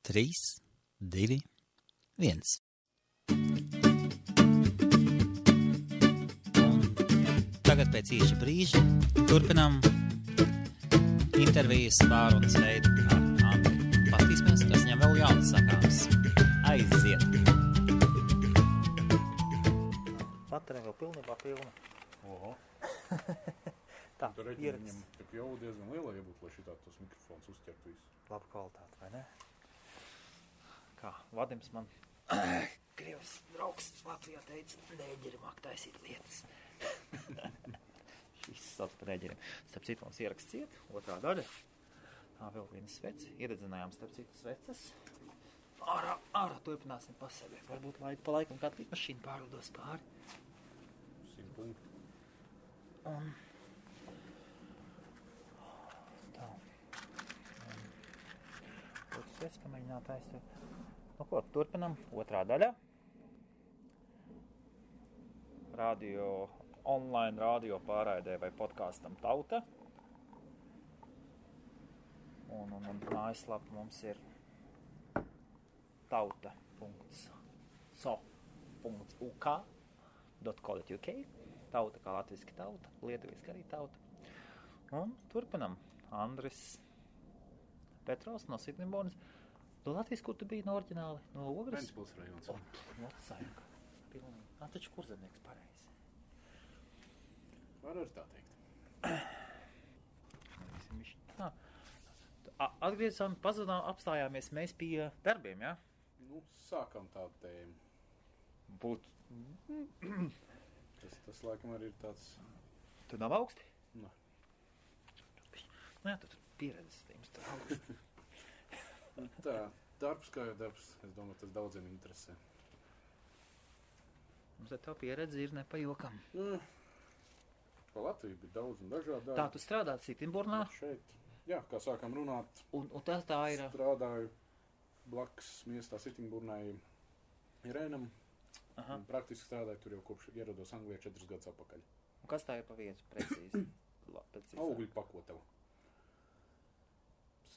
3, 2, 1. Tagad pēc īša brīža turpinām intervijas pārunas veidu ar Andru. Pastīsimies, kas viņam vēl jauns sakāms. Aiziet! Baterija vēl pilnībā pilna. Oho. Tā, tu reķini viņam tik jau diezgan liela iebūt, lai šitā tos mikrofons uzķert visu. Laba kvalitāte, vai ne? Kā Vadims man Krievs draugs Latvijā teica, nēģeri māk taisīt lietas. Šis sauc par nēģeriem. Starp citu mums ieraksts ciet, otrā daļa. Tā vēl viena sveci. Ieredzinājām starp citu sveces. Ārā turpināsim pa sevi. Varbūt pa laikam kāda mašīna pārlidos pāri. 100 punktu. Un tā. Otrs sveci pamēģināt aizstāvēt. Nu ko, turpinam. Otrā daļa. Online radio pārraidē vai podkastam Tauta. Un mājaslapa mums ir tauta.so.uk. Tauta kā latviski tauta, lietuviski arī tauta. Un turpinam. Andris Petrovs no Sitnibornas. No Latvijas, kur tu biji no oriģināli? No Ogres? Ventspils rajons. Motsājumka. Pilnīgi. Taču kurzemnieks pareizi. Var arī tā teikt. Atgriezām, pazudām, apstājāmies mēs pie darbiem, ja? Nu, sākam tādu tēmu. Tas laikam arī ir tāds... Tu nav augsti? Nē. Nu jā, tu pieredzes tiem augsti. Tā, darbs kā jau darbs. Es domāju, tas daudziem interesē. Mums ar tā pieredze ir nepajokam. Pa Latviju bija daudz un dažādi. Tā, tu strādāt Sitnibornā? Šeit. Jā, kā sākām runāt. Un tas tā ir... Strādāju blakus miestā Sitnibornai Irēnam. Un praktiski strādāju tur jau kopš ierados Anglijā 4 gadus atpakaļ. Un kas tā ir pa vietu precīzi? Augļu pakotavu.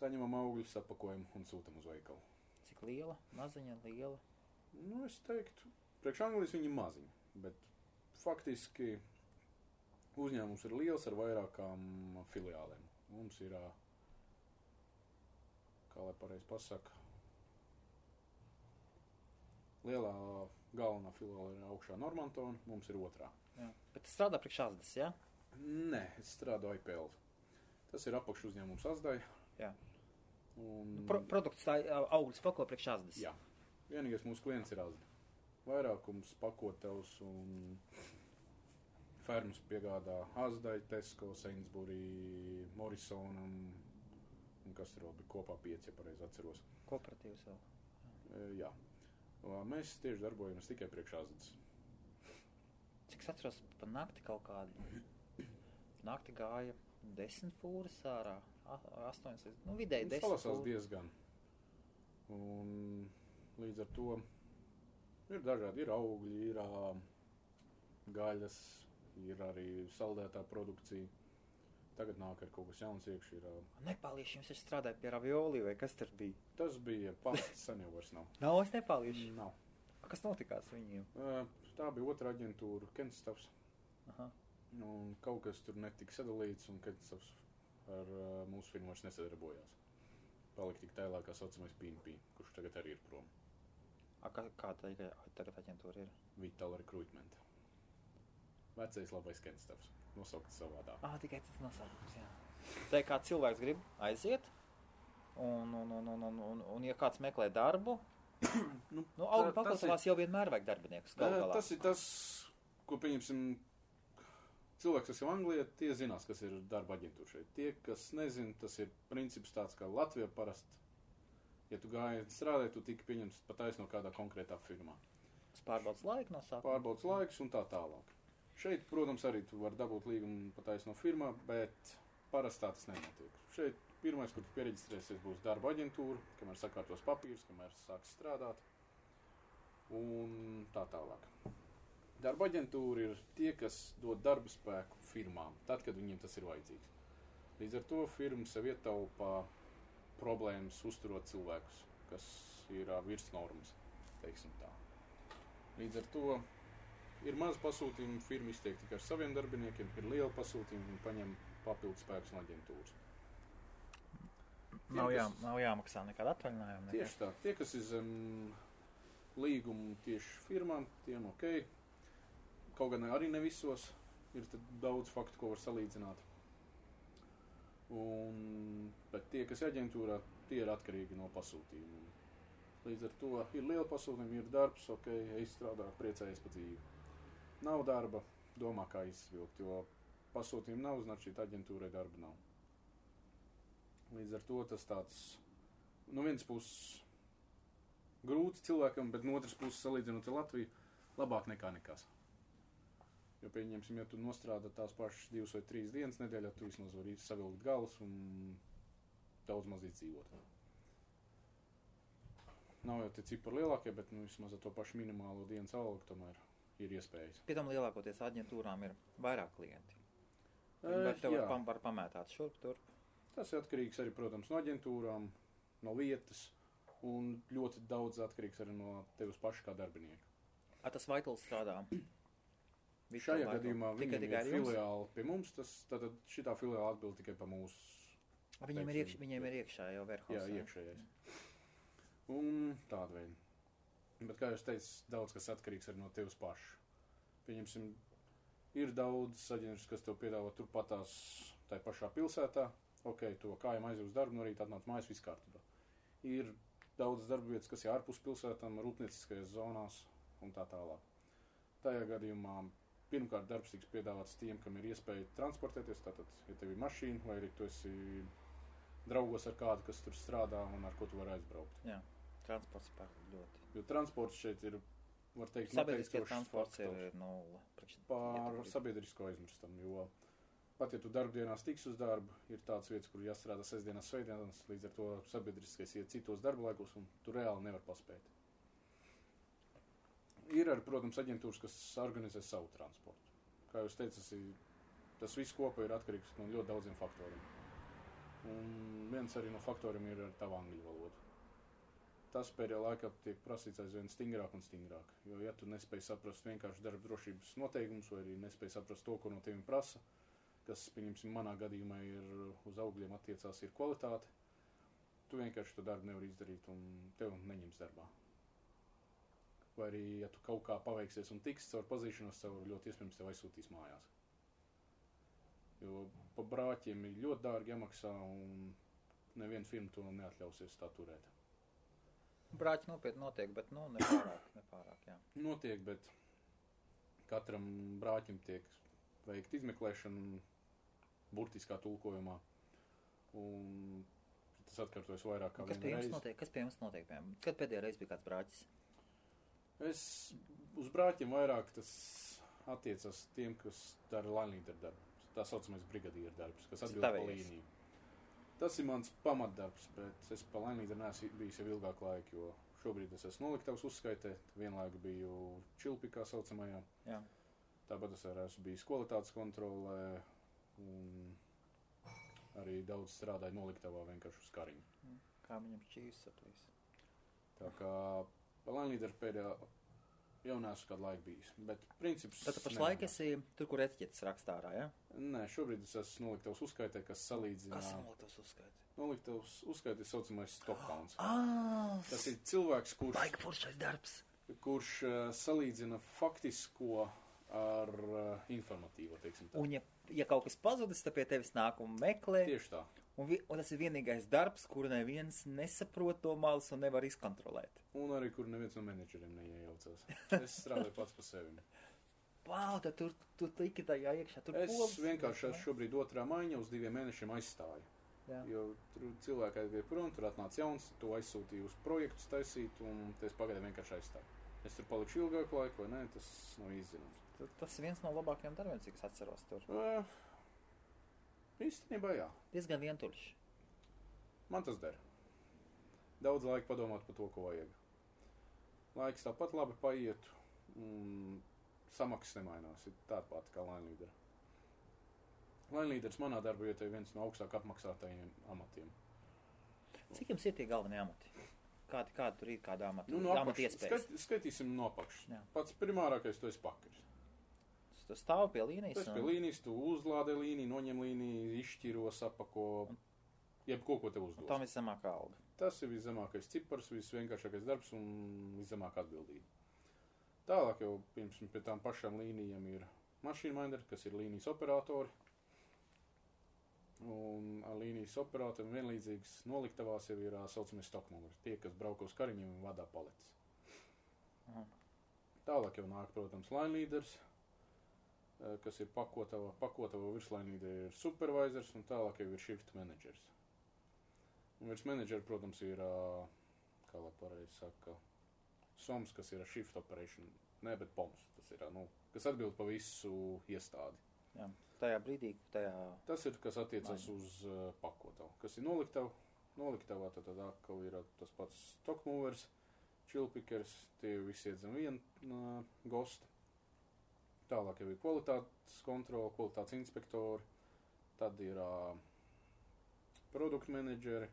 Saņemam augļus, apakojam un sūtam uz veikalu. Cik liela? Maziņa, liela? Nu, es teiktu, priekš Anglijas viņi maziņi, bet faktiski uzņēmums ir liels ar vairākām filiālēm. Mums ir, kā lai pareizi pasaka, lielā galvenā filiāla ir augšā Normantona, mums ir otrā. Jā. Bet tu strādā priekš Asdas, ja? Nē, es strādāju IPL. Tas ir apakš uzņēmums Asdai. Jā. Un... Produkts tā augļus pako priekš Asdas. Jā. Vienīgais mūsu klients ir Asda. Vairākums pakotevs un fermas piegādā Asdai, Tesco, Sainsbury, Morrisonam un kas tur vēl bija kopā 5, ja pareizi atceros. Kooperatīvs vēl. Jā. Mēs tieši darbojamies tikai priekš Asdas. Cik es atceros, pa nakti kaut kādu. Nakti gāja 10 fūras ārā, 8, nu vidēji 10 fūras. Salasās diezgan. Un līdz ar to ir dažādi, ir augļi, ir gaļas, ir arī saldētā produkcija. Tagad nāk ar kaut kas jauns iekš. Nepālieši jums taču strādāja pie ravioli, vai kas tur bija? Tas bija pasts, sen jau vairs nav. Nav es nepālieši? Nav. Kas notikās viņiem? Tā bija otra aģentūra, Kenstafs. Aha. Un kaut kas tur netika sadalīts, un Kenstafs ar mūsu firmu vairs nesadarbojās. Palika tik tēlā, kā saucamais PNP, kurš tagad arī ir prom. Kā tagad aģentūra ir? Vital Recruitment. Vecais labais Kenstafs. Nosaukt savādā. Tikai tas nosaukums, jā. Tā kā cilvēks grib aiziet, un ja kāds meklē darbu, augļu pakotavās jau vienmēr vajag darbiniekus. Tas ir tas, ko pieņemsim, cilvēks, kas jau Anglijā, tie zinās, kas ir darba aģentūra šeit. Tie, kas nezin, tas ir princips tāds, kā Latvijā parasti. Ja tu gāji strādāt, tu tika pieņemts pataisno kādā konkrētā firmā. Tas pārbaudas laiku no sākuma. Pārbaudas laiks un tā tālāk. Šeit, protams, arī tu vari dabūt līgumu pataisno firmā, bet parasti tā tas nenotiek. Šeit pirmais, kur tu piereģistrēsies, būs darba aģentūra, kamēr sakārtos papīrus, kamēr sāks strādāt un tā tālāk. Darba aģentūra ir tie, kas dod darba spēku firmām, tad, kad viņiem tas ir vajadzīgs. Līdz ar to firma sev ietaupā problēmas uzturot cilvēkus, kas ir virs normas, teiksim tā. Līdz ar to ir maz pasūtījumu, firma iztiek tikai ar saviem darbiniekiem, ir liela pasūtījuma un paņem papildus spēkus no aģentūras. Nav jāmaksā nekāda atvaļinājuma. Tieši tā. Tie, kas ir zem līgumu tieši firmām, tiem ok. Kaut gan arī ne visos. Ir daudz faktu, ko var salīdzināt. Bet tie, kas ir aģentūrā, tie ir atkarīgi no pasūtījuma. Līdz ar to ir liela pasūtījuma, ir darbs, ok, strādā, priecājies pa dzīvi. Nav darba, domā, kā izvilkt, jo pasūtījuma nav, znači aģentūrai darba nav. Līdz ar to tas tāds, no vienas puses grūti cilvēkam, bet no otras puses salīdzinot ar Latviju, labāk nekā nekas. Jo, pieņemsim, ja tu nostrādā tās pašas 2 vai 3 dienas nedēļā, tu vismaz vari savilkt galus un daudz maz izdzīvot. Nav jau tie cipari lielākie, bet vismaz ar to pašu minimālo dienas algu tomēr ir iespējas. Pie tam lielākoties aģentūrām ir vairāk klienti. Bet tev var pamētāt šurp turp. Tas ir atkarīgs arī, protams, no aģentūrām, no vietas un ļoti daudz atkarīgs arī no tevis paša kā darbinieka. Tas Vaitls strādā? Šajā gadījumā viņam ir filiāli pie mums, tad šitā filiāli atbild tikai pa mūsu. Viņiem ir iekšā jau warehouse. Jā, iekšējais. Un tāda veida. Bet, kā jūs teicu, daudz kas atkarīgs arī no tevis paša. Pieņemsim, ir daudz aģentūras, kas tev piedāvā turpatās tai pašā pilsētā. Ok, to kājām aiziet uz darbu, no rīta atnāc mājas, viss kārtībā. Ir daudz darba vietas, kas ir ārpus pilsētām, rūpnieciskajās zonās un tā tālāk. Tajā gadījumā pirmkārt darbs tiks piedāvāts tiem, kam ir iespēja transportēties, tātad, ja tev ir mašīna, vai arī tu esi draugos ar kādu, kas tur strādā un ar ko tu vari aizbraukt. Jā, transports ļoti. Jo transports šeit ir, var teikt, sabiedriskais transports ir nulle. Pār sabiedrisko aizmirstam, jo pat, ja tu darbdienās tiks uz darbu, ir tāds vietas, kur jāstrādā sestdienās, svētdienās, līdz ar to sabiedriskais iet citos darba laikos un tu reāli nevar paspēt. Ir arī, protams, aģentūras, kas organizē savu transportu. Kā jūs teicat, tas viss kopā ir atkarīgs no ļoti daudziem faktoriem. Un viens arī no faktoriem ir ar tavu angļu valodu. Tas pēdējā laikā tiek prasīts aizvien stingrāk un stingrāk. Jo, ja tu nespēj saprast vienkārši darba drošības noteikumus, vai arī nespēj saprast to, ko no tevi prasa, kas, pieņemsim, manā gadījumā ir uz augļiem attiecās, ir kvalitāte, tu vienkārši to darbu nevar izdarīt un tev neņems darbā. Vai arī, ja tu kaut kā paveiksies un tiks caur pazīšanos, caur ļoti iespējams tev aizsūtīs mājās. Jo pa brāķiem ir ļoti dārgi jāmaksā un neviena firma to neatļausies tā turēt. Brāķi nopietni notiek, bet nepārāk, jā. Notiek, bet katram brāķim tiek veikt izmeklēšana burtiskā tulkojumā. Un tas atkārtojas vairāk kā vienu reizi. Kas pie jums notiek? Kad pēdējā reize bija kāds brāķis? Uz brāķiem vairāk tas attiecas tiem, kas dara line-leader darbu. Tā saucamais brigadieru darbs, kas atbild pa līniju. Tas ir mans pamatdarbs, bet es pa line-leader neesmu bijis jau ilgāk laiku, jo šobrīd es esmu noliktavas uzskaitē, vienlaiku biju čilpikā saucamajā. Jā. Tāpat es arī esmu bijis kvalitātes kontrolē un arī daudz strādāju noliktavā vienkārši uz kariņu. Kā viņam šķīs saplīs? Tā kā pa line-leader pēdējā jau neesmu kādu laiku bijis, bet princips... Tad pašlaik esi tur, kur etiķetes rakstā ārā, ja? Nē, šobrīd es esmu noliktavas uzskaitē, kas salīdzina... Kas ir noliktavas uzskaitē? Noliktavas uzskaitē saucamais stopkauns. Tas ir cilvēks, kurš salīdzina faktisko ar informatīvo, teiksim tā. Un ja kaut kas pazudis, tad pie tevis nāk un meklē. Tieši tā. Un tas ir vienīgais darbs, kuru neviens nesaprot to malas un nevar izkontrolēt. Un arī, kur neviens no menedžeriem neiejaucās. Es strādāju pats pa sevi. Wow, tad tu tiki tajā iekšā. Es vienkārši esmu šobrīd 2. maiņa uz 2 mēnešiem aizstāju. Jā. Jo tur cilvēki aizgāja prom, tur atnāca jauns, to aizsūtīju uz projektus taisīt, un es pagaidām vienkārši aizstāju. Es tur palikšu ilgāku laiku, vai ne, tas nav izzināms. Tas ir viens no labākajiem darbiem, cik es atceros tur. Īstenībā jā. Diezgan vientuļš. Man tas der. Daudz laika padomāt par to, ko vajag. Laiks tāpat labi paiet, un samaksas nemainās. Ir tāda pati kā line-leader. Line-leaders manā darba vietā ir viens no augstāk apmaksātajiem amatiem. Cik jums ir tie galvenie amati? Kāda tur ir, kāda amata, No amata iespējas? skaitīsim no apakšas. Jā. Pats primārākais, tu esi pakaļs. Tu stāvi pie līnijas? Tu esi pie līnijas, tu uzlādē līniju, noņem līniju, izšķiro, sapako, jebko, ko tev uzdos. Tam viszemākā alga. Tas ir viszemākais cipars, visvienkāršākais darbs un viszemākā atbildība. Tālāk jau, piemēram, pie tām pašām līnijām ir machine minder, kas ir līnijas operatori. Un ar līnijas operatoriem vienlīdzīgas noliktavās jau ir saucamie stockmovers, tie, kas brauko uz kariņiem un vadā paletes. Aha. Tālāk jau nāk, protams, line leaders, kas ir pakotava virsline leader ir supervisors, un tālāk jau ir shift managers. Un virs menedžera, protams, ir, kā lai pareizi saka, SOMS, kas ir shift operation, ne, bet POMS, tas ir, kas atbild pa visu iestādi. Jā, tajā brīdī, Tas ir, kas attiecas uz pakotavu. Kas ir noliktavā, tad atkal ir tas pats stockmovers, chillpickers, tie visi iet zem viena gosta. Tālāk jau ir kvalitātes kontrola, kvalitātes inspektori, tad ir produktu menedžeri,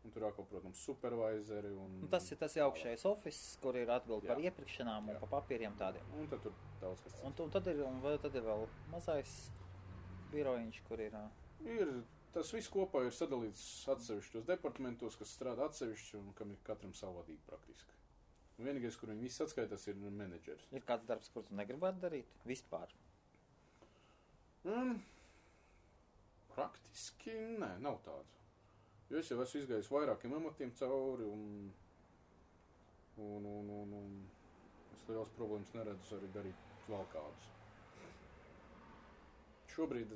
un tur atkal, protams, supervisori. Tas ir augšējais office, kur ir atbildi par iepirkšanām un par papīriem tādiem. Un tad tur daudz kas cits. Un tad ir vēl mazais birojiņš, kur ir... Tas viss kopā ir sadalīts atsevišķos departamentos, kas strādā atsevišķi un kam ir katram savu vadību praktiski. Un vienīgais, kur viņi visi atskaitās, ir menedžers. Ir kāds darbs, kur tu negribētu darīt? Vispār? Praktiski nē, nav tāds. Jo es jau esmu izgājis vairākiem amatiem cauri un es liels problēmas neredzu arī darīt vēl kādus. Šobrīd...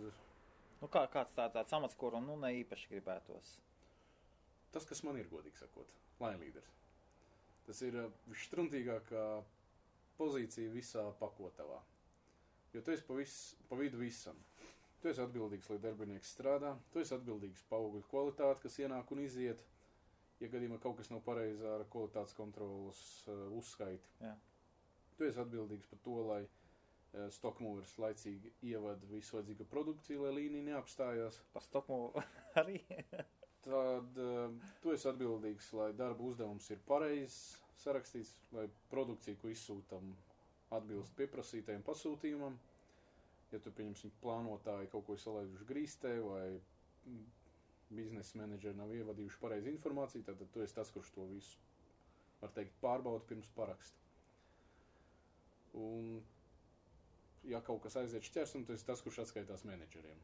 Kāds tāds amats, kuru ne īpaši gribētos? Tas, kas man ir, godīgi sakot, line leaders. Tas ir visštruntīgākā pozīcija visā pakotavā. Jo tu esi pa vidu visam. Tu esi atbildīgs, lai darbinieks strādā. Tu esi atbildīgs par augļu kvalitāti, kas ienāk un iziet. Ja gadījumā kaut kas nav pareizi ar kvalitātes kontrolas uzskaiti. Jā. Tu esi atbildīgs par to, lai stockmovers laicīgi ievada visu vajadzīgo produkciju, lai līnija neapstājās. Par stockmover arī? Tad tu esi atbildīgs, lai darba uzdevums ir pareizs sarakstīts, lai produkcija, ko izsūtam, atbilst pieprasītajam pasūtījumam. Ja tu, pieņemsim, plānotāji kaut ko salaiduši grīstē vai biznesa menedžeri nav ievadījuši pareizi informāciju, tad tu esi tas, kurš to visu, var teikt, pārbauda pirms paraksta. Un, ja kaut kas aiziet šķērsum, tu esi tas, kurš atskaitās menedžeriem.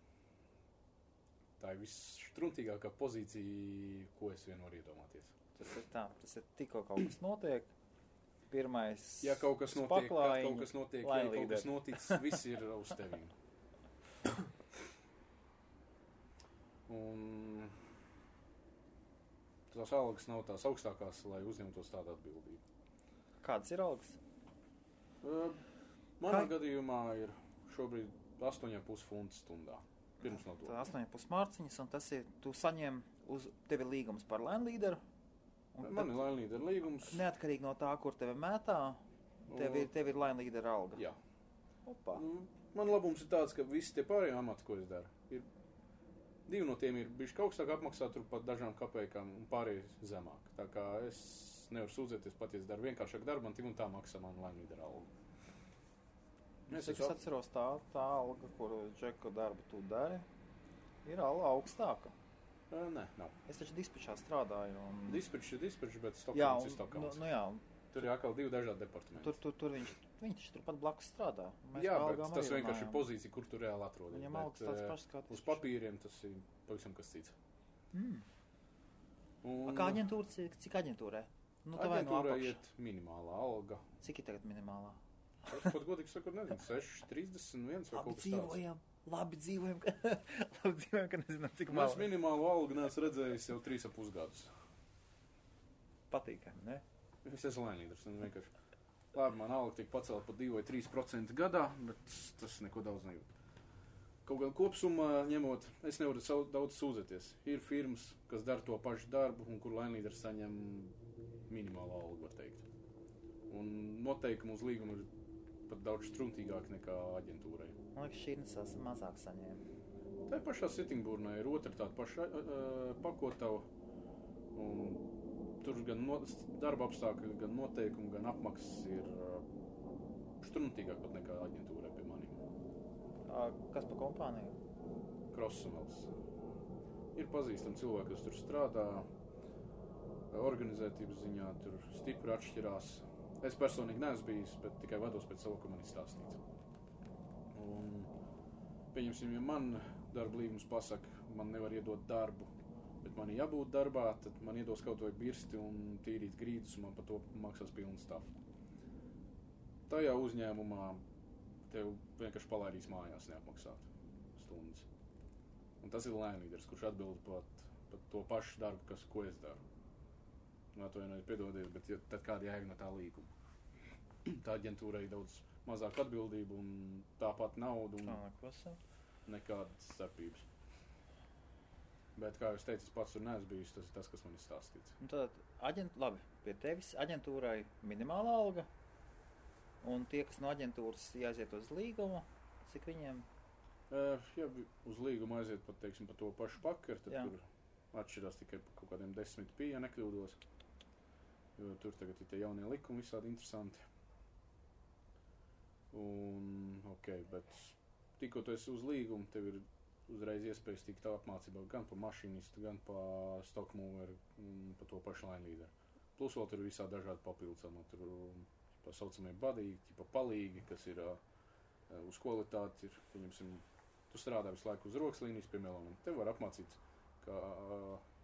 Tā ir visštruntīgākā pozīcija, ko es vien varu iedomāties. Tas ir tikko kaut kas notiek. Pirmais ja kaut kas notiek, ja kaut kas noticis, viss ir uz tevīm. Un tās algas nav tās augstākās, lai uzņemtos tādu atbildību. Kādas ir algas? Manā gadījumā ir šobrīd 8,5 funti stundā. Pirms no to. 8,5 mārciņas, un tas ir, tu saņem tev ir līgums par line leaderu. Man ir line leader līgums. Neatkarīgi no tā, kur tevi mētā, tev ir line leader alga. Jā. Opa. Man labums ir tāds, ka visi tie pārējie amati, ko es daru, divi no tiem ir bijuši augstāk apmaksāt, tur pat dažām kapējām un pārējie zemāk. Tā kā es nevaru sūdzēties, pat ja es daru vienkāršāk darbu, man tik un tā maksā man line leader alga. Es atceros tā alga, kuru džeku darbu tu dari, ir augstāka. Nē, nav. Es taču dispečā strādāju. Dispečs, bet Stokholms ir Stokholms. Jā. Tur ir atkal divi dažādi departamenti. Tur viņš taču turpat blakus strādā. Jā, bet tas vienkārši ir pozīcija, kur tu reāli atrodies. Viņam algas tāds pašs kā uz papīriem tas ir pavisam kas cits. Kā aģentūra, cik aģentūrē? Aģentūrā iet minimālā alga. Cik ir tagad minimālā? Es pat godīgi sakot, nezinu, 6,31 vai kaut kas tāds. Labi dzīvojam, ka nezinām, cik māla. Es minimālu algu neesmu redzējis jau 3,5 gadus. Patīkami, ne? Es esmu laimīgs, vienkārši. Labi, man alga tiek pacelt par 2 vai 3% gadā, bet tas neko daudz nejūt. Kaut gan kopsumā ņemot, es nevaru daudz sūdzēties. Ir firmas, kas dara to pašu darbu un kur laimīders saņem minimālu algu, var teikt. Un noteikumi uz līgumu ir pat daudz struntīgāk nekā aģentūrai. Man liekas, šī nesas mazāk saņēma. Tā pašā Sittingburnā ir otra tāda paša pakotava, un tur gan darba apstākļi, gan noteikumi, gan apmaksas ir štrumtīgāk pat nekā aģentūrai pie maniem. Kas pa kompāniju? Krosumels. Ir pazīstami cilvēki, kas tur strādā, organizētības ziņā tur stipri atšķirās. Es personīgi neesmu bijis, bet tikai vados pēc savu, ka man ir stāstīts. Un, pieņemsim, ja man darba līgums pasaka, man nevar iedot darbu, bet man ir jābūt darbā, tad man iedos kaut vai birsti un tīrīt grīdus, un man par to maksās pilnu stafu. Tajā uzņēmumā tev vienkārši palaidīs mājās neapmaksāt stundas. Un tas ir lēnlīderis, kurš atbild pat to pašu darbu, ko es daru. Atvainojiet, piedodiet, bet tad kāda jēga no tā līguma? Tā aģentūrai ir daudz mazāk atbildību un tāpat naudu un nekādas starpības. Bet, kā jūs teicu, es pats tur neesmu bijis, tas ir tas, kas man ir stāstīts. Un tad, labi, pie tevis aģentūrai minimāla alga, un tie, kas no aģentūras jāiziet uz līgumu, cik viņiem? Ja uz līgumu aiziet pat, teiksim, pa to pašu pakaru, tad tur atšķirās tikai pa kaut kādiem 10 pie, ja nekļūdos. Jo tur tagad ir tie jaunie likumi visādi interesanti. Un, bet tikko tu esi uz līgumu, tev ir uzreiz iespējas tikt apmācībā gan pa mašinistu, gan pa stockmoveru, pa to pašu lainlīderu. Plus vēl tur ir visādi dažādi papildus, tur pa saucamie badīgi, pa palīgi, kas ir uz kvalitāti, pieņemsim, tu strādā visu laiku uz rokas līnijas pie meloniem. Tev var apmācīt, ka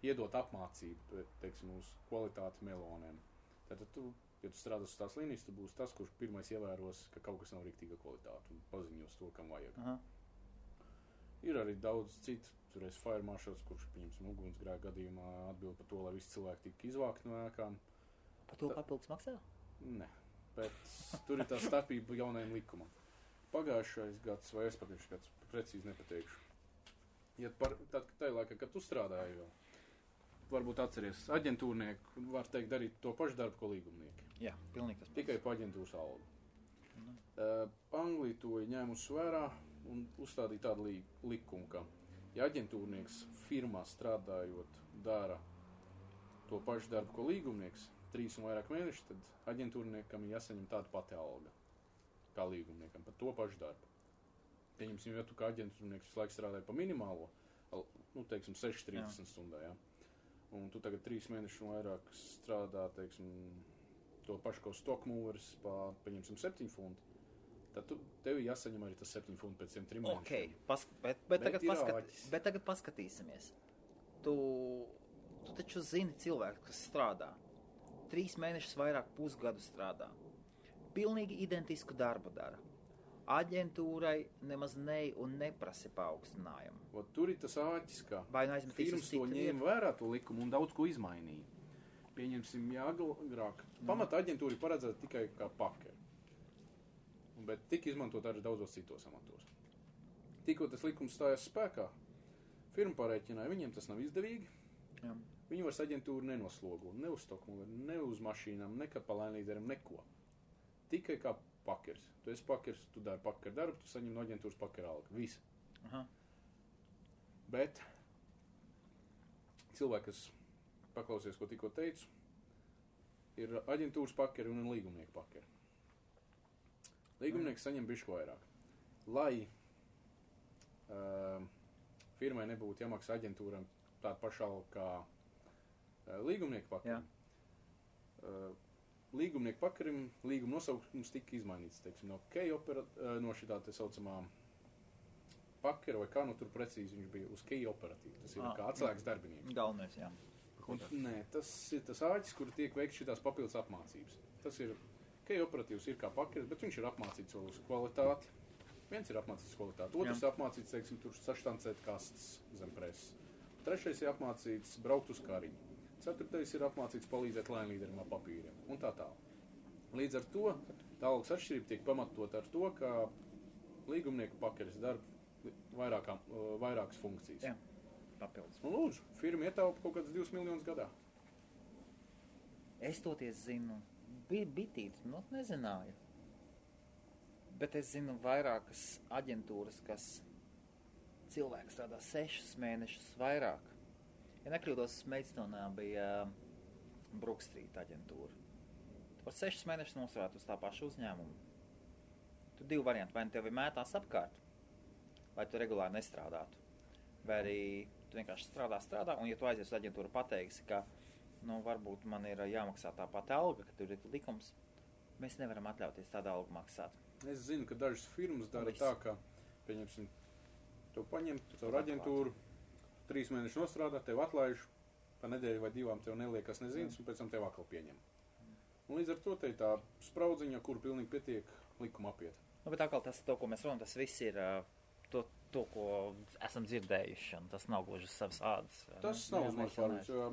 iedot apmācību, teiksim, uz kvalitāti meloniem. Tātad tu, ja tu strādās uz tās līnijas, tu būsi tas, kurš pirmais ievēros, ka kaut kas nav riktīga kvalitāte un paziņos to, kam vajag. Aha. Ir arī daudz citu, tur ir fire marshals, kurš, pieņemsim, ugunsgrēka gadījumā atbild par to, lai visi cilvēki tika izvākti no ēkām. Par to papildus maksā? Ne, bet tur ir tā starpība jaunajam likumam. Pagājušais gads vai aizpagājušais gads, precīzi nepateikšu. Ja tajā laikā, kad tu strādāji vēl, varbūt atceries, aģentūrnieki var teikt darīt to pašu darbu, ko līgumnieki. Jā, pilnīgi tas pats. Tikai pa aģentūras algu. Anglija to ir ņēmusi vērā un uzstādīja tādu likumu, ka ja aģentūrnieks firmā strādājot dara to pašu darbu, ko līgumnieks, 3 un vairāk mēneši, tad aģentūrniekam ir jāsaņem tāda pati alga kā līgumniekam par to pašu darbu. Pieņemsim, ja tu kā aģentūrnieks visu laiku strādāji pa minimālo, teiksim, 6-30 stundā, jā. Un tu tagad 3 mēnešus un vairāk strādā, teiksim, to pašu kā stockmovers pieņemsim 7 fundi, tad tev jāsaņem arī tas 7 fundi pēc 3 mēnešiem. Bet tagad paskatīsimies. Tu taču zini cilvēku, kas strādā. 3 mēnešus vairāk pusgadu strādā. Pilnīgi identisku darbu dara. Aģentūrai nemaz neprasa paaugstinājumu. Tur ir tas āķis, ka firmas to ņēma vērā to likumu un daudz ko izmainīja. Pieņemsim, agrāk. Pamata aģentūra paredzēta tikai kā pakeri. Bet tika izmantot arī daudzos citos amatos. Tikko tas likums stājās spēkā, firma parēķināja, viņiem tas nav izdevīgi. Jā. Viņi vairs aģentūru nenoslogo, ne uz stockmoveru, ne uz mašīnām, ne kā pa lainlīderim, neko. Tikai kā pakeris. Tu esi pakeris, tu dari pakeru darbu, tu saņem no aģentūras pakeru algu. Visi. Aha. Bet cilvēki, kas paklausies, ko tikko teicu, ir aģentūras pakeri un līgumnieku pakeri. Līgumnieks saņem bišķi vairāk. Lai firmai nebūtu jāmaksā aģentūram tāda paša alga kā līgumnieku pakerim. Līgumnieku pakarim līguma nosaukums tika izmainīts, teiksim, no šitā te saucamā pakera vai kā, tur precīzi viņš bija uz key operatīvu. Tas ir kā atslēgas darbinieks. Galvenais, jā. Nē, tas ir tas āķis, kur tiek veikts šitās papildus apmācības. Tas ir, key operatīvs ir kā pakeris, bet viņš ir apmācīts vēl uz kvalitāti. Viens ir apmācīts uz kvalitāti, otrs ir apmācīts, teiksim, tur saštancēt kastes zem preses. Trešais ir apmācīts braukt uz kariņu. Ceturtais ir apmācīts palīdzēt lainlīderim ar papīriem un tā tālāk. Līdz ar to tā algas atšķirība tiek pamatot ar to, ka līgumnieku pakeris darba vairākas funkcijas. Jā, papildus. Un lūdzu, firma ietaupa kaut kāds 2 miljonus gadā. Es toties zinu, bitīti, nezināju. Bet es zinu vairākas aģentūras, kas cilvēks strādā 6 mēnešus vairāk. Ja nekļūdos, Meidstone bija Brook Street aģentūra. Tu var 6 mēnešus nostrādāt uz tā pašu uzņēmumu. Tu 2 varianti, vai tevi mētās apkārt, vai tu regulāri nestrādātu. Vai arī tu vienkārši strādā, un ja tu aizies uz aģentūru pateiksi, ka, varbūt man ir jāmaksā tā pati alga, ka tur ir likums, mēs nevaram atļauties tādu algu maksāt. Es zinu, ka dažas firmas dara tā, ka, pieņemsim, tu paņem caur aģentūru, 3 mēnešus nostrādā, tev atlaiž, pa nedēļu vai 2 tev neliekas nezinas, un pēc tam tev atkal pieņem. Un līdz ar to te ir tā spraudziņa, kur pilnīgi pietiek likuma apiet. Bet atkal tas, to, ko mēs runājam, tas viss ir to, ko esam dzirdējuši, un tas nav gluži uz savas ādas. Tas nav uz manas pārvīds, jo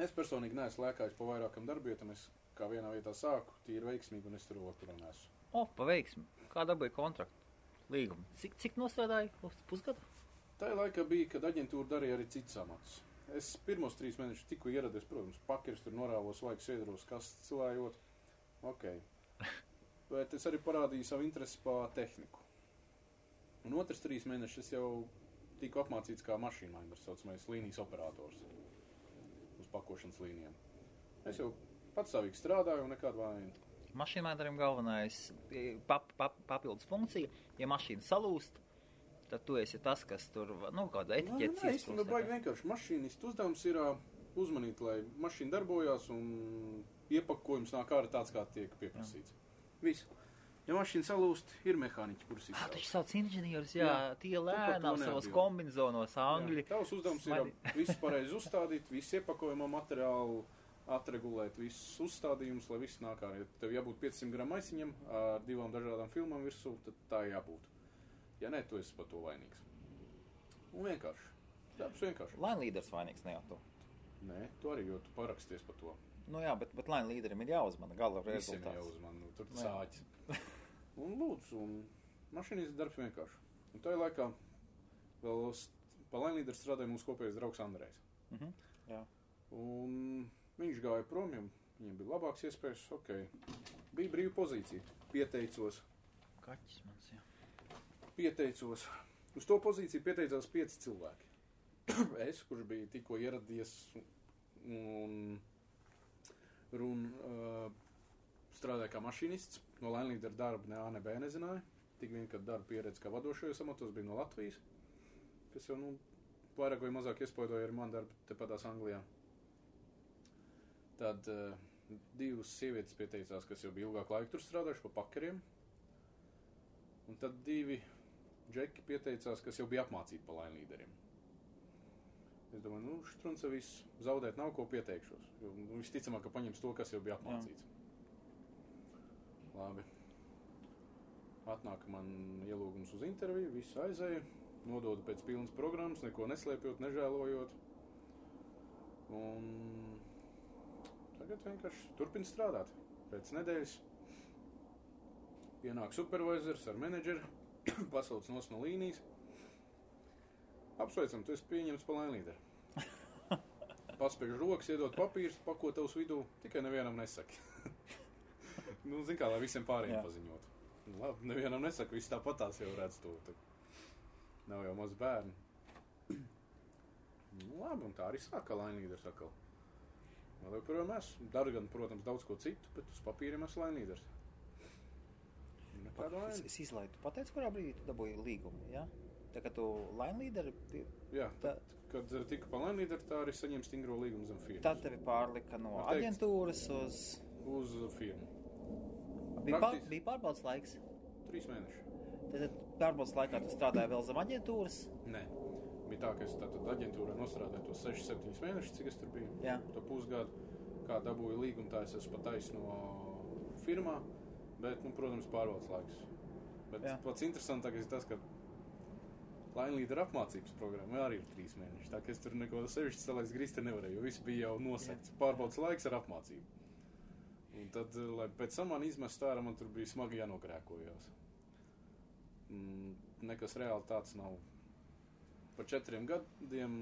es personīgi neesmu lēkājis pa vairākam darbietam, es kā vienā vietā sāku, tīri veiksmīgi, un es tur vēl kurā neesmu. Pa veiksmi. Kā dabūja kontraktu? Līgumu. Cik nostrādāja uz pusgadu? Tā laika bija, kad aģentūra darīja arī citas amatus. Es pirmos 3 mēnešus tikko ieradies, protams, pakeris tur norāvos, laikus iedros, kastes cilājot. Ok. Bet es arī parādīju savu interesi pa tehniku. Un otrs 3 mēnešus es jau tiku apmācīts kā mašīnlainers, saucamais līnijas operators uz pakošanas līnijām. Es jau patstāvīgi strādāju un nekādu vainu. Mašīnlainerim galvenais papildus funkcija, ja mašīna salūst, tad tu esi tas, kas tur, kāda etiķetes iespūst. Nē, baigi vienkārši mašīnistu uzdevums ir uzmanīt, lai mašīna darbojās un iepakojums nāk ārā tāds, kā tiek pieprasīts. Visu. Ja mašīna salūst, ir mehāniķi, kurus izstrādā. Taču sauc inženierus, tie lēnām savos kombinzonos angļi. Tavs uzdevums ir visu pareizi uzstādīt, visu iepakojumā materiālu atregulēt, visus uzstādījumus, lai viss nāk ārā. Ja tev jābūt 500 gramu maisiņam ar 2 dažādām filmām virsū, tad tā jābūt. Ja nē, tu esi par to vainīgs. Un vienkārši. Darbs vienkārši. Line līderis vainīgs, ne jau tu. Nē, tu arī, jo tu paraksties par to. Jā, bet line līderim ir jāuzmana gala rezultāts. Visiem jāuzmana, tur sāķis. Un lūdzu, un mašīnīs darbs vienkārši. Un tajā laikā vēl pa line līderi strādāja mūsu kopējais draugs Andrejs. Jā. Un viņš gāja prom, viņam bija labāks iespējas, Bija brīva pozīcija. Pieteicos. Kaķis mans, jā. Pieteicos. Uz to pozīciju pieteicās 5 cilvēki. Es, kurš bija tikko ieradies un strādāja kā mašīnists, no line līdera darba ne A, ne B nezināja. Tik vien, kad darba pieredze kā vadošajos amatos bija no Latvijas, kas jau, vairāk vai mazāk iespaidoja arī man darbu tepatās Anglijā. Tad 2 sievietes pieteicās, kas jau bija ilgāk laiku tur strādājuši pa pakeriem. Un tad 2 džeki pieteicās, kas jau bija apmācīti pa line līderiem. Es domāju, štrunce viss, zaudēt nav ko pieteikšos. Jo visticamāk, ka paņems to, kas jau bija apmācīts. Labi. Atnāk man ielūgums uz interviju, visu aizēju, nododu pēc pilnas programmas, neko neslēpjot, nežēlojot. Un tagad vienkārši turpinu strādāt. Pēc nedēļas pienāk supervisors ar menedžeri, pasauc nos no līnijas. Apsveicam, tu esi pieņemts pa line līderi. Paspiež rokas, iedod papīrus, pako tavs vidū, tikai nevienam nesaki. Zin kā, lai visiem pārējiem paziņot. Labi, nevienam nesaka, viss tāpatās jau redz to. Nav jau maz bērni. Labi, un tā arī sāka line līderis atkal. Vēl joprojām esmu. Daru gan, protams, daudz ko citu, bet uz papīriem esmu line līderis. Es izlaidu. Tu pateici, kurā brīdī tu dabūji līgumu, jā? Tā kā tu line līderi... Jā, kad tika pa line līderi, tā arī saņem stingro līgumu zem firmas. Tad tevi pārlika no aģentūras uz firmu. Bija pārbaudas laiks? 3 mēneši. Tad pārbaudas laikā tu strādāji vēl zem aģentūras? Nē. Bija tā, ka es tātad aģentūrā nostrādāju tos 6-7 mēnešus, cik es tur biju. Jā. To pusgadu, kā dabūju līgumu, tā es esmu pataisno firmā, bet, protams, pārbaudas laiks. Bet pats interesantākais ir tas, ka line līdera apmācības programma arī ir 3 mēneši. Tā, ka es tur neko sevišķi salaist grīsti nevarēju, jo viss bija jau nosakts. Pārbaudas laiks ar apmācību. Un tad, lai pēc tam man izmest ārā, man tur bija smagi jānogrēkojās. Nekas reāli tāds nav. Pa 4 gadiem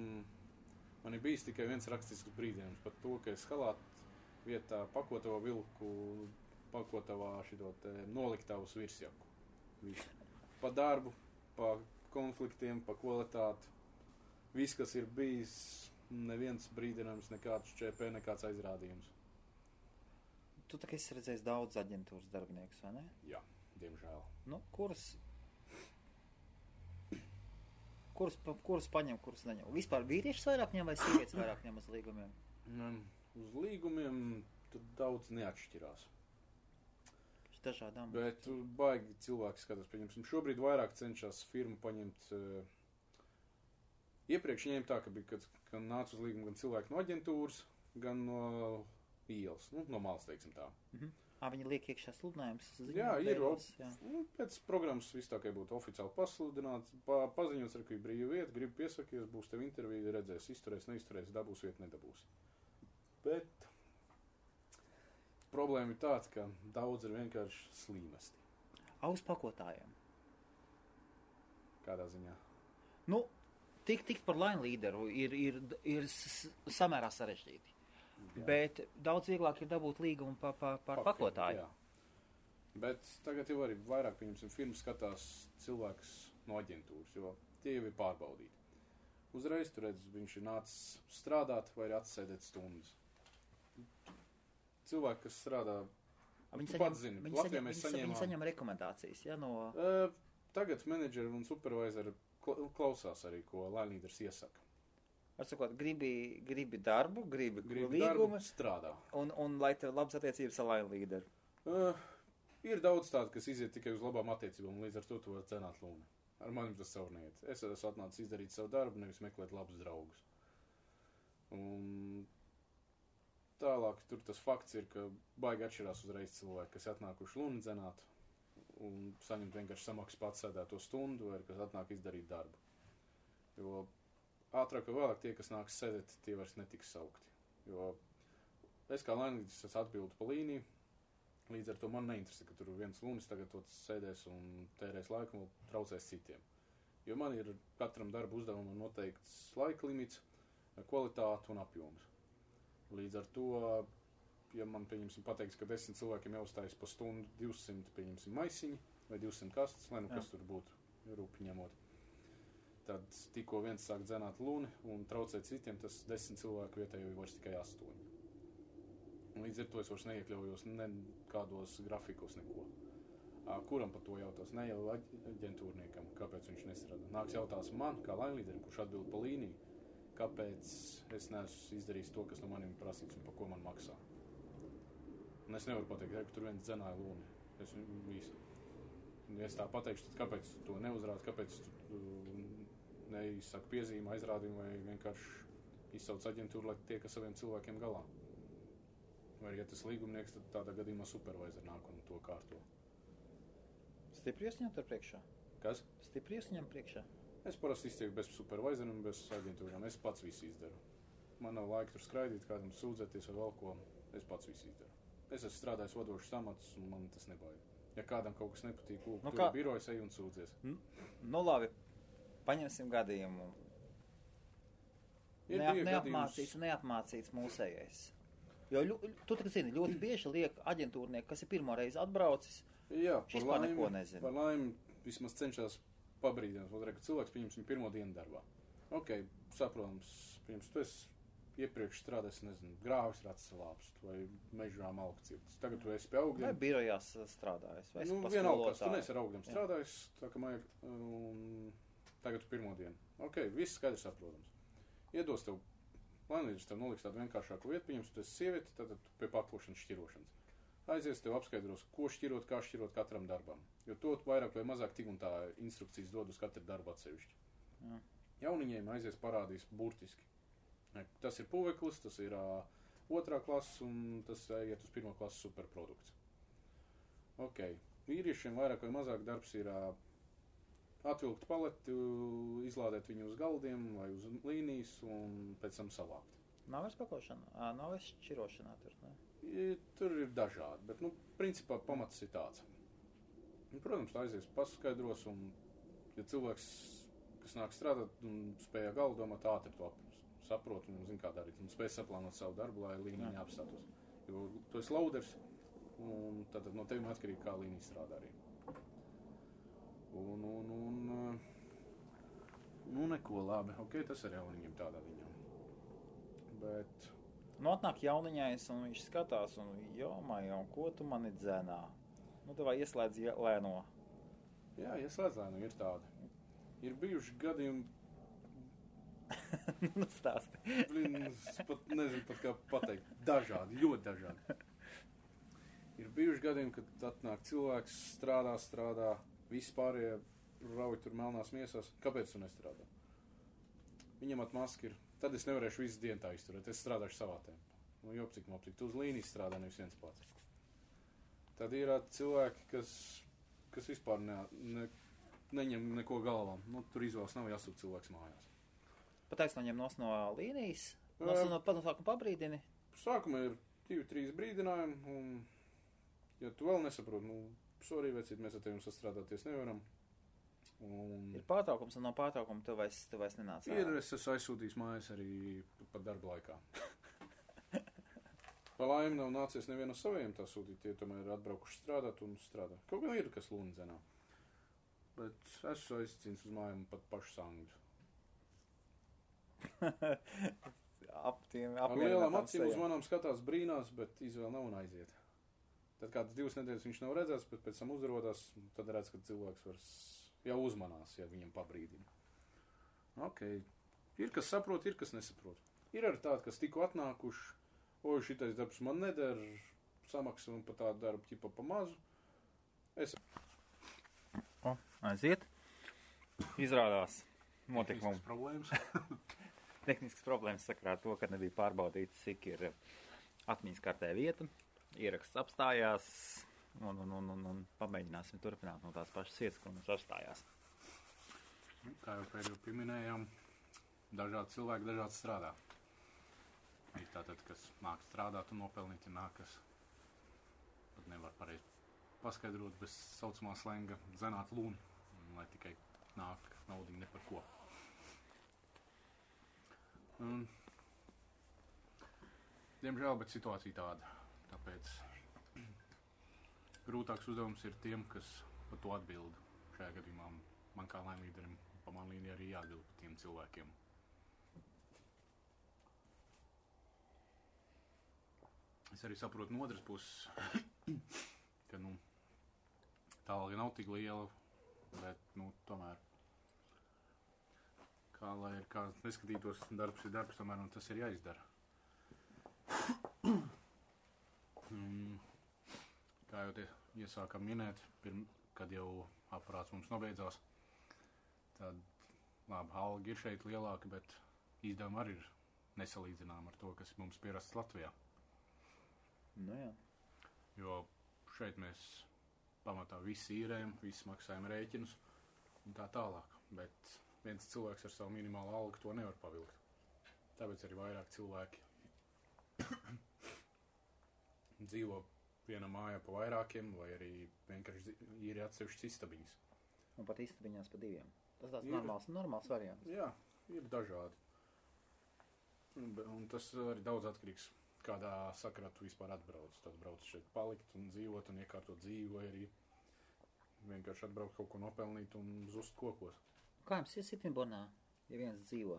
man ir bijis tikai viens rakstisks brīdienis par to, ka es halātu vietā pakotavā vilku, pakotavā šito noliktavus virsjaku. Pa darbu, pa konfliktiem, pa kvalitāti. Viss, kas ir bijis neviens brīdinājums, nekāds ČP, nekāds aizrādījums. Tu tā kā esi redzējis daudz aģentūras darbiniekus, vai ne? Jā, diemžēl. Nu, kurus paņem, kurus neņem? Vispār vīriešus vairāk ņem vai sievietes vairāk ņem uz līgumiem? Uz līgumiem tur daudz neatšķirās. Dažādām. Bet baigi cilvēki skatās, pieņemsim, šobrīd vairāk cenšas firmu paņemt. Iepriekš ņēma tā, ka bija, kad nāca uz līgumu gan cilvēki no aģentūras, gan no ielas, no malas, teiksim tā. Viņi liek iekšā sludinājums? Jā, ir. Pēc programmas viss tā, ka būtu oficiāli pasludināts, paziņots, ka ir brīva vieta, gribu piesakies, būs tev intervija, redzēs, izturēs, neizturēs, dabūs vietu, nedabūs. Bet problēma ir tāda, ka daudz ir vienkārši slīmesti. Uz pakotājiem? Kādā ziņā? Nu, tikt par line līderu ir samērā sarežģīti. Jā. Bet daudz vieglāk ir dabūt līgumu par pakotāju. Jā. Bet tagad jau arī vairāk, pieņemsim, firmas skatās cilvēks no aģentūras, jo tie jau ir pārbaudīti. Uzreiz tu redz, viņš ir nācis strādāt vai arī atsēdēt stundas. Cilvēki, kas strādā, viņi saņem rekomendācijas, ja, no... Tagad menedžeri un supervisori klausās arī, ko line leaders iesaka. Ar sakot, gribi darbu, gribi līgumu, darbu, strādā. Un lai tev labas attiecības ar line leaderu. Ir daudz tādu, kas iziet tikai uz labām attiecībām, un līdz ar to tu var cenāt lūni. Ar manim tas savu neiet. Es esmu atnācis izdarīt savu darbu, nevis meklēt labus draugus. Un tālāk tur tas fakts ir, ka baigi atšķirās uzreiz cilvēki, kas atnākuši luni dzenāt un saņemt vienkārši samaksu pats sēdēto stundu, vai kas atnāk izdarīt darbu. Jo ātrāk vai vēlāk tie, kas nāks sēdēt, tie vairs netiks saukti. Jo es kā lainītis atbildu pa līniju, līdz ar to man neinteresē, ka tur viens lunis tagad sēdēs un tērēs laiku un traucēs citiem. Jo man ir katram darba uzdevumam noteikts laika limits, kvalitāte un apjoms. Līdz ar to, ja man, pieņemsim, pateiks, ka 10 cilvēkiem jāuzstājas pa stundu 200, pieņemsim, maisiņi vai 200 kastes, lai kas tur būtu rūpi ņemot, tad tikko viens sāk dzenāt luni un traucēt citiem, tas 10 cilvēku vietā jau ir vairs tikai 8. Un līdz ar to es vairs neiekļaujos nekādos grafikos neko. Kuram par to jautās? Ne jau aģentūrniekam, kāpēc viņš nestrādā. Nāks jautās man, kā line leaderim, kurš atbild pa līniju, kāpēc es neesmu izdarījis to, kas no manim prasīts un par ko man maksā. Un es nevaru pateikt, ka tur viens dzenāja lūni. Ja es tā pateikšu, tad kāpēc tu to neuzrādi, kāpēc tu neizsaka piezīme, aizrādījumu vai vienkārši izsauc aģentūru, lai tiek ar saviem cilvēkiem galā. Vai, ja tas līgumnieks, tad tādā gadījumā supervisor nāk un to kārto. Stipri iesaņemt ar priekšā? Kas? Stipri iesaņemt priekšā? Es parasti iztieku bez supervisoru un bez aģentūrām. Es pats visu izdaru. Man nav laika tur skraidīt, kādam sūdzēties vai vēl ko. Es pats visu izdaru. Es esmu strādājis vadošus amatus un man tas nebaida. Ja kādam kaut kas nepatīk, tur ir birojas, ej un sūdzies. Nu labi, paņemsim gadījumu. Neapmācīts mūsējais. Jo tu tā zini, ļoti bieži liek aģentūrnieki, kas ir pirmo reizi atbraucis, šis par neko nezina. Par laimi vismaz cenšas pabrīdināt, ka cilvēks pieņemsim pirmo dienu darbā. Ok, saprotams, tu esi iepriekš strādājis, nezinu, grāvis ratsalāps vai mežā malku cirtis. Tagad tu esi pie augļiem. Vai birojās strādājis, vai vienalga, tu neesi ar augļiem strādājis, tā ka mājag, un tagad tu pirmo dienu. Ok, viss skaidrs saprotams. Iedos tev, lainīdrs tev noliks tādu vienkāršāku vietu, pieņems, tu esi sievieti, tad tu pie paklošanas šķirošanas. Aizies tev apskaidros, ko šķirot, kā šķirot katram darbam. Jo to vairāk vai mazāk tik un tā instrukcijas dod uz katru darbu atsevišķi. Jauniņiem aizies parādīs burtiski. Tas ir puveklis, tas ir 2. klases un tas iet uz 1. klases superprodukts. Ok, vīriešiem vairāk vai mazāk darbs ir atvilkt paleti, izlādēt viņu uz galdiem vai uz līnijas un pēc tam savākt. Nav vairs pakošana, nav vairs šķirošanā tur, ne? Tur ir dažādi, bet, principā pamats ir tāds. Protams, tā aizies paskaidros, un, ja cilvēks, kas nāk strādāt un spēja galvu domāt, ātri to saprot un zina, kā darīt, un spēj saplānot savu darbu, lai līnija neapstatos. Jo tu esi loaders, un tad no tevim atkarīgi, kā līnija strādā arī. Nu, neko labi. Ok, tas arī jauniņiem tādā ziņā. Bet Nu, atnāk jauniņais, un viņš skatās, un un ko tu mani dzenā? Nu, tev ieslēdz lēno. jā, ieslēdz lēnu, ir tādi. Ir bijuši gadījumi, Nu, stāsti. es pat nezinu pat kā pateikt, dažādi, ļoti dažādi. Ir bijuši gadījumi, kad atnāk cilvēks, strādā, visi pārējie rauj tur melnās miesās. Kāpēc tu nestrādā? Viņam atmaski ir. Tad es nevarēšu visu dienu tā izturēt. Es strādāšu savā tempā. Nu, jopcik, tu uz līnijas strādā, nevis viens pats. Tad ir cilvēki, kas vispār neņem neko galvām. Nu, tur izvēles nav jāsūt cilvēks mājās. Pateiks noņem no līnijas? No sākuma pabrīdini? Sākumā ir 2-3 brīdinājumi, un ja tu vēl nesaproti, sorry, vecīt, mēs ar tevi sastrādāties nevaram. Ir pārtraukums, un no pārtraukuma tu vairs nenāc. Es esmu aizsūtījis mājas arī pat darba laikā. Pa laimi nav nācies nevienu saviem tā sūtīt, tie tomēr ir atbraukuši strādāt un strādā. Kaut gan ir, kas lūni dzenā. Bet esmu aizcīnis uz mājām pat pašu sangļus. Ar lielām acīm uz manām skatās brīnās, bet izvēle nav un aiziet. Tad kādas 2 nedēļas viņš nav redzēts, bet pēc tam uzrodās, tad redz, ka cilvēks jau uzmanās, ja viņam pabrīdina. Ok, ir kas saprot, ir kas nesaprot. Ir arī tādi, kas tikko atnākuši, šitais darbs man neder, samaksa un pa tādu darbu ķipa pa mazu. Aiziet. Izrādās. Tehniskas problēmas. Tehniskas problēmas sakarā to, ka nebija pārbaudīts, cik ir atmiņas kartē vieta. Ieraksts apstājās un pamēģināsim turpināt no tās pašas vietas, ko mums apstājās. Kā jau pēdējo pieminējām, dažādi cilvēki dažādi strādā. Ir tātad, kas nāk strādāt un nopelnīt, ir nāk, kas pat nevar pareizi paskaidrot bez saucamā slenga dzenāt lūni, lai tikai nāk naudiņi ne par ko. Diemžēl, bet situācija tāda. Tāpēc grūtāks uzdevums ir tiem, kas par to atbild. Šajā gadījumā man kā laimlīderim pa man līniju arī jāatbild par tiem cilvēkiem. Es arī saprotu no otras puses, ka tā alga nav tik liela, bet tomēr kā neskatītos, darbs ir darbs, tomēr un tas ir jāizdara. Kā jau te iesākam minēt, kad jau aparāts mums nobeidzās, tad labi, alga ir šeit lielāka, bet izdevumi arī ir nesalīdzinām ar to, kas mums pierasts Latvijā. Nu jā. Jo šeit mēs pamatā visi īrējam, visi maksājam rēķinus un tā tālāk, bet viens cilvēks ar savu minimālu algu to nevar pavilkt. Tāpēc arī vairāk cilvēki dzīvo vienā mājā pa vairākiem, vai arī vienkārši ir atsevišķas istabiņas. Un pat istabiņās pa 2. Tas tāds normāls variants. Jā, ir dažādi. Un tas arī daudz atkarīgs, kādā sakarā tu vispār atbrauc. Tad brauc šeit palikt un dzīvot un iekārtot dzīvi, vai arī vienkārši atbraukt kaut ko nopelnīt un zust kokos. Kā jums ir Sitvinbornā, ja viens dzīvo?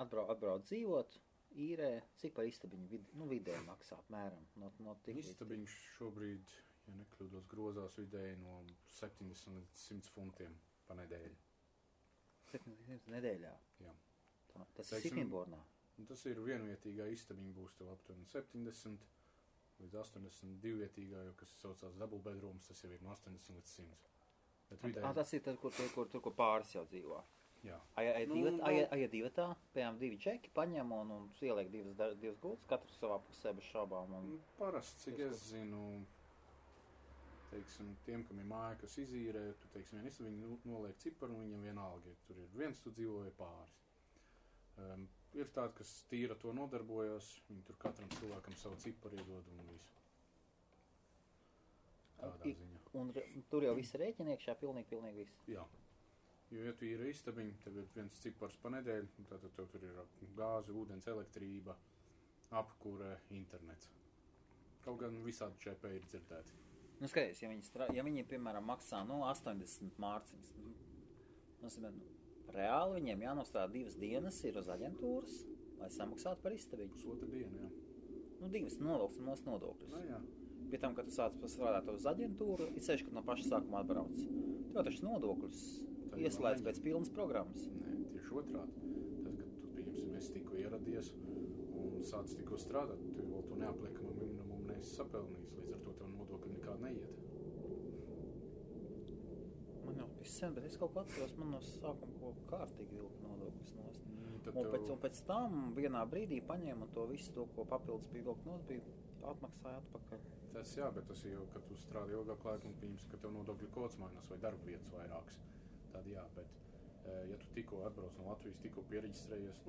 Atbrauc dzīvot, īrē, cik par istabiņu vidēji maksā apmēram? Istabiņš šobrīd, ja nekļūdos, grozās vidēji no 70 līdz 100 funtiem pa nedēļu. 70 nedēļā? Jā. Tas ir Sitvinbornā? Tas ir vienvietīgā istabiņa būs tev aptuveni 70 līdz 80, divvietīgā, jo kas saucās double bedrooms, tas jau ir no 80 līdz 100. Tas ir tad, kur pāris jau dzīvo? Jā. Aja divatā, piemēram 2 čeki paņem un ieliek 2 gultas, katrs savā pusē bez šaubām. Parasti, cik es zinu, teiksim, tiem, kam ir māja, kas izīrē, tu, teiksim, vien istabiņu noliek ciparu un viņam vienalga, ja tur ir viens, tu dzīvo vai pāris. Ir tādi, kas tīra to nodarbojas, viņi tur katram cilvēkam savu ciparu iedod un visu. Tādā ziņā. Un tur jau viss rēķina iekšā, pilnīgi viss? Jā. Jo, ja tu ir istabiņa, tev ir viens cipars pa nedēļu, tātad tev tur ir gāze, ūdens, elektrība, apkure, internets. Kaut gan visādi ČP ir dzirdēti. Skaties, ja viņi, piemēram, maksā 80 mārciņas, Reāli viņiem jānostrādā 2 dienas ir uz aģentūras, lai samaksātu par istabiņu. Pusotra diena, jā. 2 nolūks un mūsu nodokļus. Nu, jā. Pie tam, kad tu sāc strādāt uz aģentūru, ir sevišķi, kad no paša sākuma atbrauc. Tu jau taču nodokļus ieslēdz pēc pilnas programmas. Nē, tieši otrādi. Tad, kad tu, pieņemsim, esi tikko ieradies un sāc tikko strādāt, tu vēl to neapliekamo minimumu neesi sapelnījis, līdz ar to tev nodokļi nekādi neiet. Man jau sen, bet es kaut ko atceros, man no sākuma kaut kārtīgi vilka nodokļus nost. Un pēc tam vienā brīdī paņēma to visu to, ko papildus bija vilka nost, bija atmaksāja atpakaļ. Tas jā, bet tas jau, kad tu strādā ilgāk laiku un pieņemsi, ka tev nodokļu kods mainās vai darba vietas vairākas, tad jā, bet ja tu tikko atbrauc no Latvijas, tikko piereģistrējies,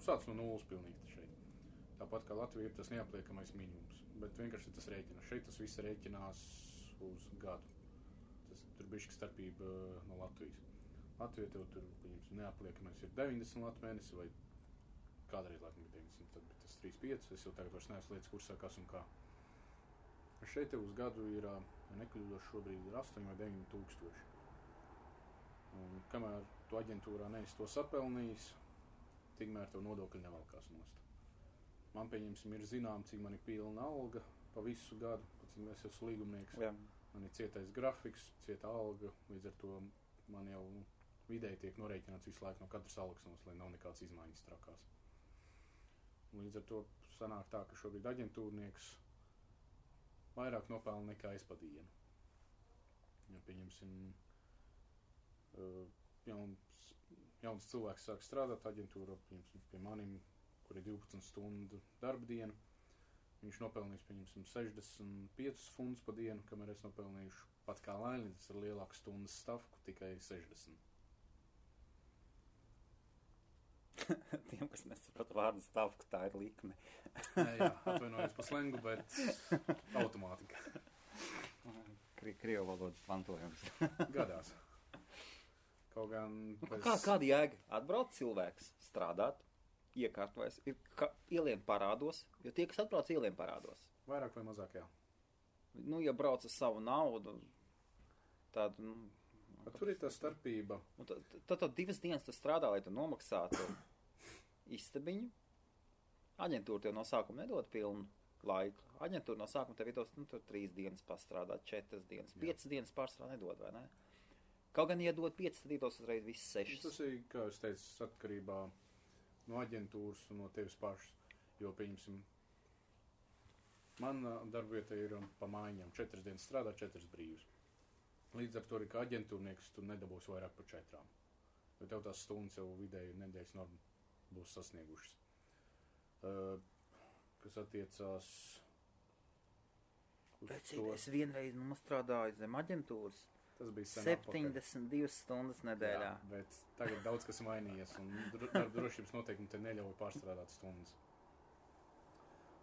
sāc no nulles pilnīgi šeit. Tāpat kā Latvija ir tas neapliekamais minimums, bet vienkārši tas rēķinās. Šeit tas viss rēķinās uz gadu. Tur bišķi starpība no Latvijas. Latvija tev tur, pieņemsim, neapliekamais ir 90 latu mēnesi vai kādreiz laikam ir 90, tad tas 3,5. Es jau tagad vairs neesmu lietas kursā, kas un kā. Šeit tev uz gadu ir, ja nekļūdos, šobrīd ir 8 vai 9 tūkstoši. Un kamēr tu aģentūrā neesi to sapelnījis, tikmēr tev nodokļi nevalkās nost. Man, pieņemsim, ir zinām, cik man ir pilna alga pa visu gadu, cik es esmu līgumnieks. Jā. Man ir cietais grafiks, cieta alga, līdz ar to man jau vidēji tiek norēķināts visu laiku no katras algas nost, lai nav nekāds izmaiņas trakās. Līdz ar to sanāk tā, ka šobrīd aģentūrnieks vairāk nopelna nekā es pa dienu. Ja, pieņemsim, jauns cilvēks sāk strādāt aģentūrā, pieņemsim, pie manim, kur ir 12 stundu darba diena, viņš nopelnīs, pieņemsim, 65 funds pa dienu, kamēr es nopelnīšu pat kā lailīdz ar lielāku stundas stavku, tikai 60. Tiem, kas nesaprata vārdu stavku, tā ir likme. Jā, atvainojos par slengu, bet automātika. Krievu valodas mantojums. Gadās. Kaut gan... Kāda jēga? Atbrauc cilvēks strādāt, iekārtojas, ielien parādos, jo tie, kas atbrauc, ielien parādos. Vairāk vai mazāk, jā. Ja brauc ar savu naudu, tad... Tur ir tā starpība. Tad 2 dienas tu strādā, lai tu nomaksātu istabiņu. Aģentūra tev no sākuma nedod pilnu laiku. Aģentūra no sākuma tev ir tos, 3 dienas pastrādāt, 4 dienas, 5 dienas pārstrādā nedod, vai ne? Kaut gan, ja dod 5, tad iedos uzreiz viss 6. Tas ir, kā es teicu, atkarībā no aģentūras un no tevis pašas. Jo, pieņemsim, man darbvieta ir pa mājiņām. 4 dienas strādā, 4 brīvas. Līdz ar to arī kā aģentūrnieks tu nedabūsi vairāk par 4. Jo tev tās stundas jau vidēji nedēļas norma būs sasniegušas. Kas attiecās uz to... Es vienreiz strādāju zem aģentūras. Tas bija 72 stundas nedēļā. Jā, bet tagad daudz kas mainījies un darba drošības noteikumi te neļauj pārstrādāt stundas.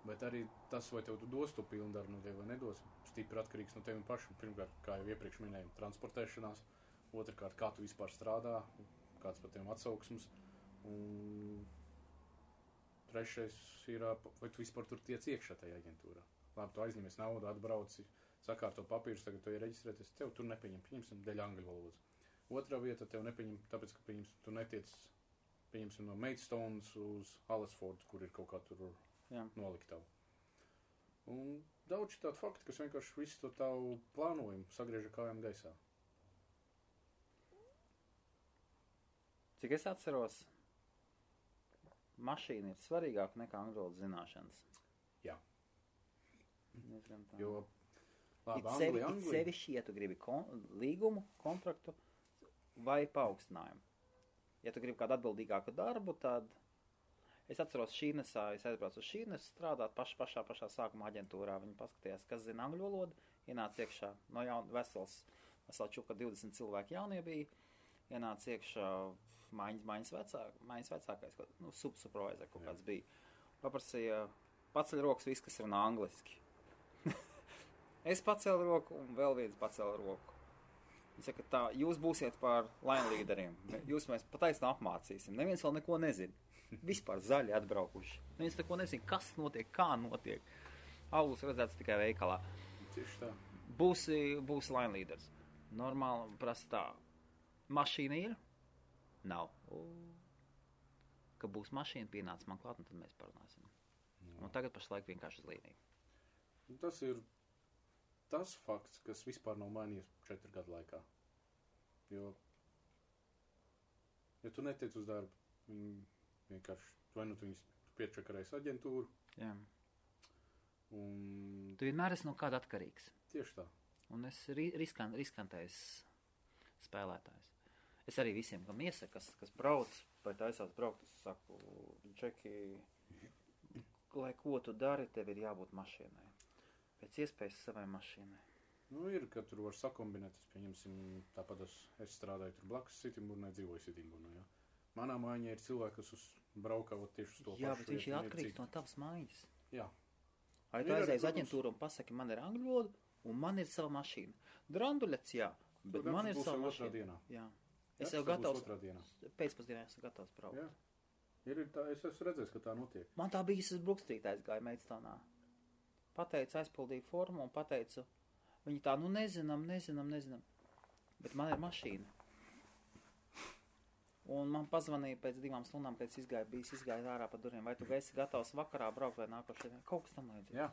Bet arī tas, vai tev tu dos to pilnu darbu no tevi vai nedos, stipri atkarīgs no tevi pašam. Pirmkārt, kā jau iepriekš minēju, transportēšanās. Otrkārt, kā tu vispār strādā, kāds par tiem atsauksmes. Un trešais ir, vai tu vispār tur tiec iekšā tajā aģentūrā. Labi, tu aizņemies naudu, atbrauci, sakārto papīrus, tagad tu ir reģistrēties, tev tur nepieņem, pieņemsim, dēļ angļu valodas. Otrā vieta tev nepieņem, tāpēc, ka pieņemsim, tu netiec, pieņemsim, no Maidstones uz Alesfordu, kur ir kaut kā tur noliktavu. Un daudz tādu faktu, kas vienkārši visu to tavu plānojumu sagrieža kājām gaisā. Cik es atceros, mašīna ir svarīgāka nekā angļu valodas zināšanas. Jā. Jo labi, it sevišķi, ja tu gribi līgumu, kontraktu vai paaugstinājumu. Ja tu gribi kādu atbildīgāku darbu, tad es atceros Šīnesā, es aizbraucu uz Šīnesu strādāt pašā sākuma aģentūrā. Viņi paskatījās, kas zina angļu valodu, ienāca iekšā no vesels čuka 20 cilvēki jaunie bija, ienāca iekšā maiņas vecākais, supervisor kaut kāds bija. Paprasīja, paceļ rokas viss, kas runā angliski. Es pacēlu roku un vēl viens pacēla roku. Viņi saka, tā, jūs būsiet par line līderiem. Jūs mēs pataisnā apmācīsim. Neviens vēl neko nezina. Vispār zaļi atbraukuši. Neviens neko nezina, kas notiek, kā notiek. Augurs redzēts tikai veikalā. Tieši tā. Būs line līderis. Normāli prasa tā. Mašīna ir? Nav. Ka būs mašīna pienāca man klāt, un tad mēs parunāsim. Un tagad pašlaik vienkārši uz līniju. Tas ir tas fakts, kas vispār nav mainījies 4 gadu laikā. Jo, ja tu netiec uz darbu, viņi vienkārši, vai nu tu viņus piečakarēs aģentūru. Jā. Un Tu vienmēr esi no kāda atkarīgs. tieši tā. Un es riskantais spēlētājs. Es arī visiem, kam iesaku, kas brauc, vai taisās braukt, es saku, Džeki, lai ko tu dari, tev ir jābūt mašīnai. Pēc iespējas savai mašīnai. Nu, ir, ka tur var sakombinēt, es pieņemsim, tāpat es strādāju tur blakus Sitimburnai, dzīvoju Sitimburnai, jā. Manā mājā ir cilvēki, kas braukā tieši uz to Jā, pašu bet viņš ir vietu, atkarīgs no tavas mājas. Jā. Vai tu Ir arī, aizies protams, aģentūru un pasaki, man ir angļu valoda, un man ir sava mašīna. Dranduļets, jā, bet Tur man ir būs sava jau otrā mašīna. dienā. Jā. Jā, Es jau tas būs gatavs, otrā dienā. pēcpusdienā esmu gatavs braukt. Jā. Ir tā, es esmu redzējis, ka tā notiek. Man tā bija, es uz Brukstrīt aizgāju Meidstaunā. Pateicu, aizpildīju formu un pateicu, viņi tā, nu nezinām. Bet man ir mašīna. Un man pazvanīja pēc 2 stundām, kad es izgāju ārā pa durvīm. Vai tu esi gatavs vakarā braukt vai nākošajā? Kaut kas tam līdzīgs. Jā.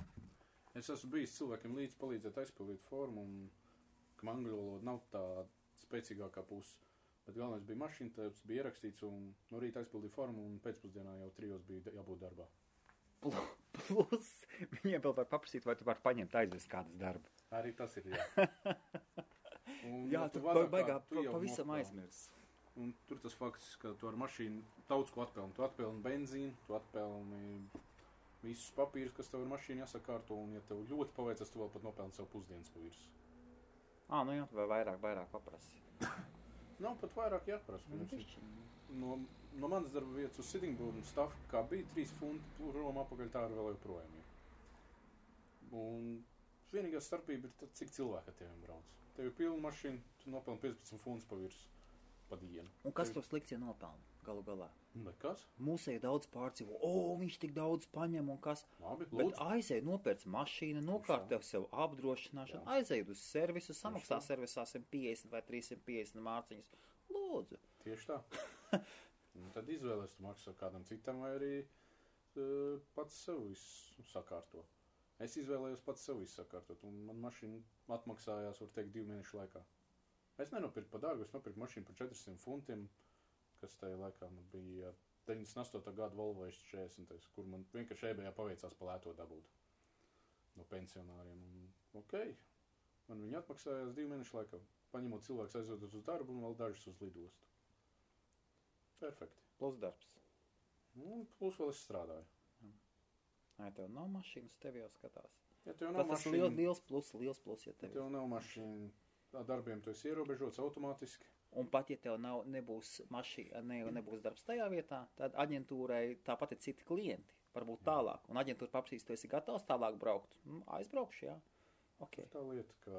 Es esmu bijis cilvēkiem līdz palīdzēt aizpildīt formu, un ka angļu valoda nav tā spēcīgākā puse. Bet galvenais bija mašīna, tas bija ierakstīts, un no rīta aizpildīja formu, un pēcpusdienā jau 3 bija jābūt darbā. Plus, viņiem vēl var paprasīt, vai tu vari paņemt aizvest kādas darba. Arī tas ir, jā. Un, Jā, ja tu vairāk baigā kā tu jau pavisam nopelni. aizmirs. Un tur tas fakts, ka tu ar mašīnu daudz ko atpelni. Tu atpelni benzīnu, tu atpelni visus papīrus, kas tev ar mašīnu jāsakārto, un ja tev ļoti paveicas, tu vēl pat nopelni sev pusdienas pa virsmu. Nu jā, vai vairāk paprasi. Nav pat vairāk jāprasa. No manas darba vietas uz Sittingburnu stafu, kā bija 3 funti, Roma apakaļ tā arī vēl joprojām ir. Un vienīgā starpība ir tad, cik cilvēki ar teviem brauc. Tev ir pilna mašīna, tu nopelni 15 funtus pa virsmu pa dienu. Un kas to slikts ir nopelna galu galā? Nekas. Mūsēji daudz pārdzīvo, viņš tik daudz paņem un kas. Labi, Bet lūdzu. aizēj nopērc mašīnu, nokārtev sev apdrošināšanu, aizēj uz servisu, samaksā servisā 150 vai 350 mārciņas. Lūdzu. Tieši tā. Un tad izvēlēs, tu maksā kādam citam vai arī pats sev visu sakārto. Es izvēlējos pats sev visu sakārtot, un man mašīna atmaksājās, var teikt, 2 mēnešu laikā. Es nenopirku pa dārgu, es nopirku mašīnu par 400 funtiem, kas tajā laikā man bija 98. gada Volvo S40, kur man vienkārši eBayā paveicās pa lēto dabūt no pensionāriem. Un, man viņi atmaksājās 2 mēnešu laikā, paņemot cilvēks aizvedot uz darbu un vēl dažus uz lidostu. Perfekti. Plus darbs. Un plus vēl es strādāju. Ja tev nav mašīnas, tev jau skatās. Ja tev nav Tas ir mašīna, liels plus, ja ja tev ir. tev nav mašīna, tā darbiem tu esi ierobežots automātiski. Un pat, ja tev nebūs mašīna, nebūs darbs tajā vietā, tad aģentūrai tāpat ir citi klienti, varbūt tālāk. Un aģentūra paprasīs, tu esi gatavs tālāk braukt. Aizbraukšu, jā. Okay. Tā lieta, ka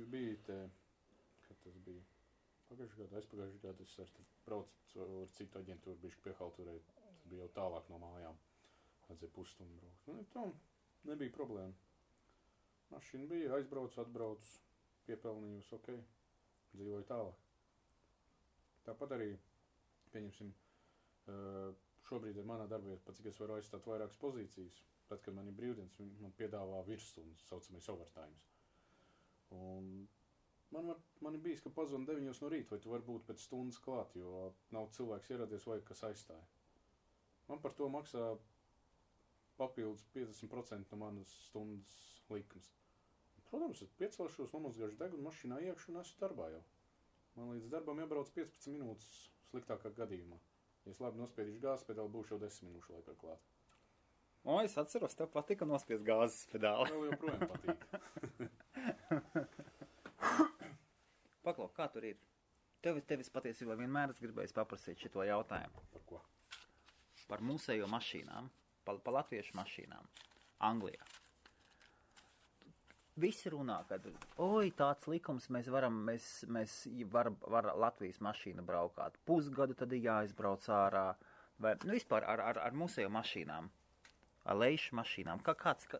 bija te, kad tas bija aizpagājušajā gadā, es ar braucu ar citu aģentūru, bišķi piehalturēju, tas bija jau tālāk no mājām. Vajadzēja pusstundu braukt. Tā nebija problēma. Mašīna bija, aizbraucu, atbraucu, piepelnījus, dzīvoju tālāk. Tāpat arī, pieņemsim, šobrīd ir manā darbā, pat cik es varu aizstāt vairākas pozīcijas. Tad, kad man ir brīvdienas, viņi man piedāvā virsstundas, saucamais overtimes. Un man ir bijis, ka pazvana 9 no rīta, vai tu vari būt pēc stundas klāt, jo nav cilvēks ieradies vai kas aizstāja. Man par to maksā papildus 50% no manas stundas likums. Protams, es piecelšos, nomazgāšu degunu mašīnā iekšu un esmu darbā jau. Man līdz darbam jābrauc 15 minūtes sliktākā gadījumā. Ja es labi nospiedīšu gāzes pedāli, būšu jau 10 minūšu laikā klāt. Es atceros, tev patika nospiest gāzes pedāli. Vēl joprojām patīk. Paklau, kā tur ir? Tevis patiesībā vienmēr es gribēju paprasīt šito jautājumu. Par ko? Par mūsējo mašīnām, par latviešu mašīnām Anglijā. Visi runā, ka tāds likums mēs varam Latvijas mašīnu braukāt. Pusgadu tad ir jāizbrauc ārā. Vai, vispār ar mūsējo mašīnām, ar leišu mašīnām.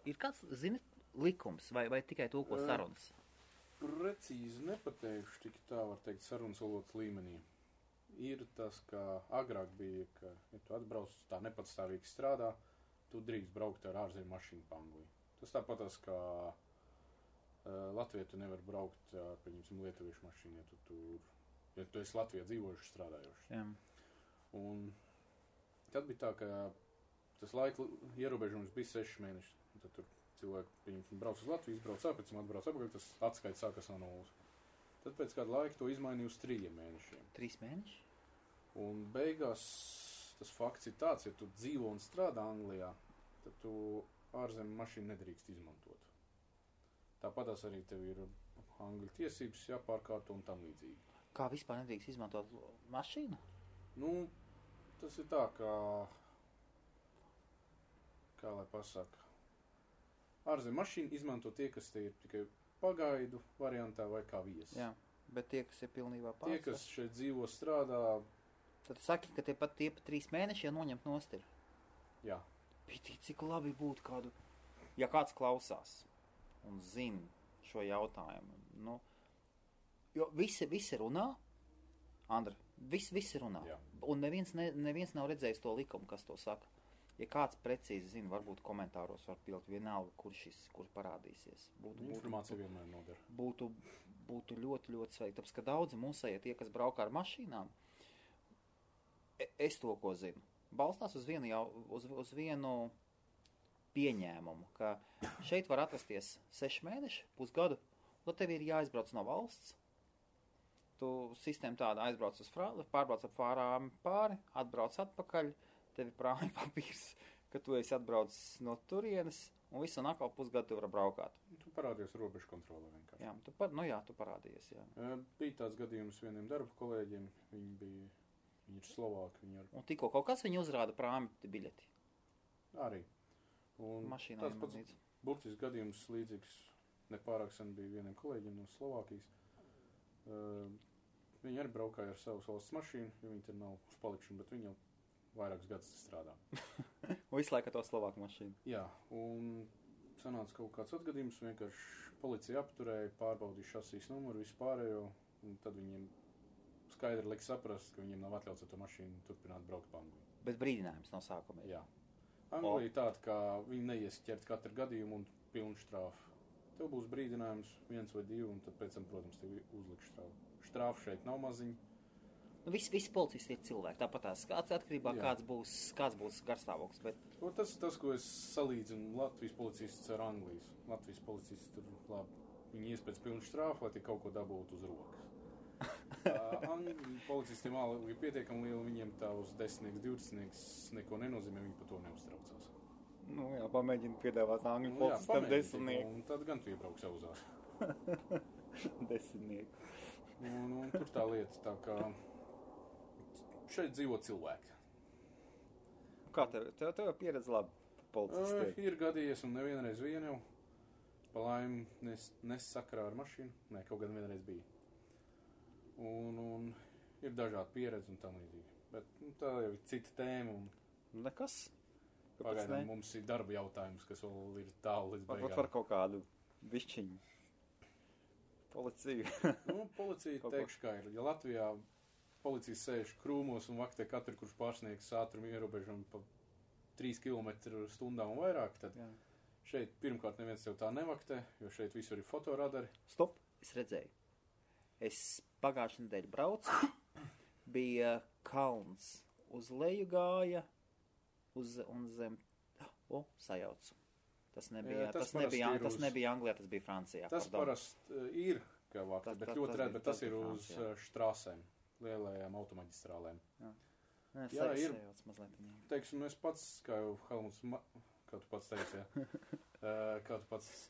Ir kāds, zini, likums vai tikai to, ko sarunas? Precīzi nepateikšu, tik tā var teikt sarunas valodas līmenī. ir tas, ka agrāk bija, ka, ja tu atbrauc tā nepatstāvīgi strādā, tu drīkst braukt ar ārzemju mašīnu pa Angliju. Tas tāpatās, ka Latvijā tu nevar braukt ar, pieņemsim, lietuviešu mašīnu, ja tu esi Latvijā dzīvojuši, strādājoši. Jā. Un tad bija tā, ka tas laika ierobežojums bija 6 mēneši. Un tad tur cilvēki, pieņemsim, brauc uz Latviju, izbrauc pēc tam atbrauc apakaļ, tas atskaits sākas no nulles. Tad pēc kāda laika to izmainīja uz 3 mēnešiem. 3 mēneši? Un beigās tas fakts ir tāds, ja tu dzīvo un strādā Anglijā, tad tu ārzemju mašīnu nedrīkst izmantot. Tāpatās arī tev ir angļu tiesības jāpārkārto un tam līdzīgi. Kā vispār nedrīkst izmantot mašīnu? Nu, tas ir tā, kā lai pasaka, ārzemju mašīnu izmanto tie, kas te ir tikai pagaidu variantā vai kā viesi. Jā, bet tie, kas ir pilnībā Tie, kas šeit dzīvo, strādā, tad saki, ka tie pat 3 mēneši jau noņemt nost ir. jā. Piti, cik labi būtu kādu, ja kāds klausās un zina šo jautājumu. Nu, jo visi runā, Andra, visi runā. Jā. Un neviens nav redzējis to likumu, kas to saka. Ja kāds precīzi zina, varbūt komentāros var pilt vienalga, kur parādīsies. Informācija vienmēr noder. Būtu ļoti, ļoti sveiki. Tāpēc, ka daudzi mūsējie tie, kas braukā ar mašīnām, es to, ko zinu, balstās uz vienu pieņēmumu, ka šeit var atrasties 6 mēneši, pusgadu, un tad tev ir jāizbrauc no valsts. Tu sistēma tāda aizbrauc pārbrauc ap Fārām pāri, atbrauc atpakaļ, tev ir prāmi papīrs, ka tu esi atbraucis no turienes, un visu un atkal pusgadu tu vari braukāt. Tu parādījies robežu kontrolē vienkārši. Jā, tu parādījies, jā. Bija tāds gadījums vieniem darba kolēģiem, viņi ir Slovāki, Un tikko kaut kas viņu uzrāda prāmi biļeti. Arī. Un Mašīnā tāds pats burtisks gadījums līdzīgs nepārāk sen bija vieniem kolēģiem no Slovākijas. Viņi arī braukāja ar savas valsts mašīnu, jo viņi tur nav uz palikšanu, bet viņi jau vairākus gadus strādā. Un visu laiku to Slovāku mašīnu. Jā, un sanāca kaut kāds atgadījums, vienkārši policija apturēja, pārbaudīja šasīs numuru, vispārējo, un tad viņiem skaidri liek saprast, ka viņiem nav atļauts ar to mašīnu turpināt braukt pa Angliju. Bet brīdinājums no sākuma. Jā. Anglija ir tāda, ka viņi neies ķert katru gadījumu un pilnu štrāfu. Tev būs brīdinājums 1 vai 2, un tad pēc tam, protams, tev uzliks štrāfu. Štrāfu šeit nav maziņa. Nu, visi policisti ir cilvēki, tāpat tās atkarībā kāds būs garstāvoklis. Bet... Tas ir tas, ko es salīdzinu Latvijas policistus ar Anglijas. Latvijas policisti tur labi. Viņi ies pēc pilnu štrāfu, lai tie kaut ko dabūtu uz rokas. Policistiem alga ir pietiekami liela, viņiem tā uz 10, 20 neko nenozīmē, viņi par to neuztraucās. Nu jā, pamēģini piedāvāt angļu policistam 10. Un tad gan tu iebrauks auzās. 10. Un tur tā lieta, tā kā šeit dzīvo cilvēki. Kā tev pieredze labi policistiem? Ir gadījies un nevienreiz vien jau. Pa laimi nesakarā ar mašīnu. Nē, kaut gan vienreiz bija. Un ir dažādi pieredzi un tam līdzīgi. Bet tā jau ir cita tēma. Nekas. Pagaidām mums ir darba jautājums, kas vēl ir tālu līdz beigām. Varbūt var kaut kādu višķiņu. Policiju. Policija teikšu, kā ir. Ja Latvijā policija sēž krūmos un vaktē katru, kurš pārsniegs ātrumu ierobežumu pa 3 km/h un vairāk, tad šeit pirmkārt neviens tev tā nevaktē, jo šeit visur ir fotoradari. Stop, es redzēju. Es pagājušajā nedēļā braucu, bija kalns, uz leju gāja, un zem, sajaucu. Tas nebija Anglijā, tas bija Francijā. Tas parasti ir, kā vakti, bet ļoti rēt, bet tas ir uz štrāsēm, lielajām automaģistrālēm. Jā, ir, teiksim, es pats, kā jau Helmuts, kā tu pats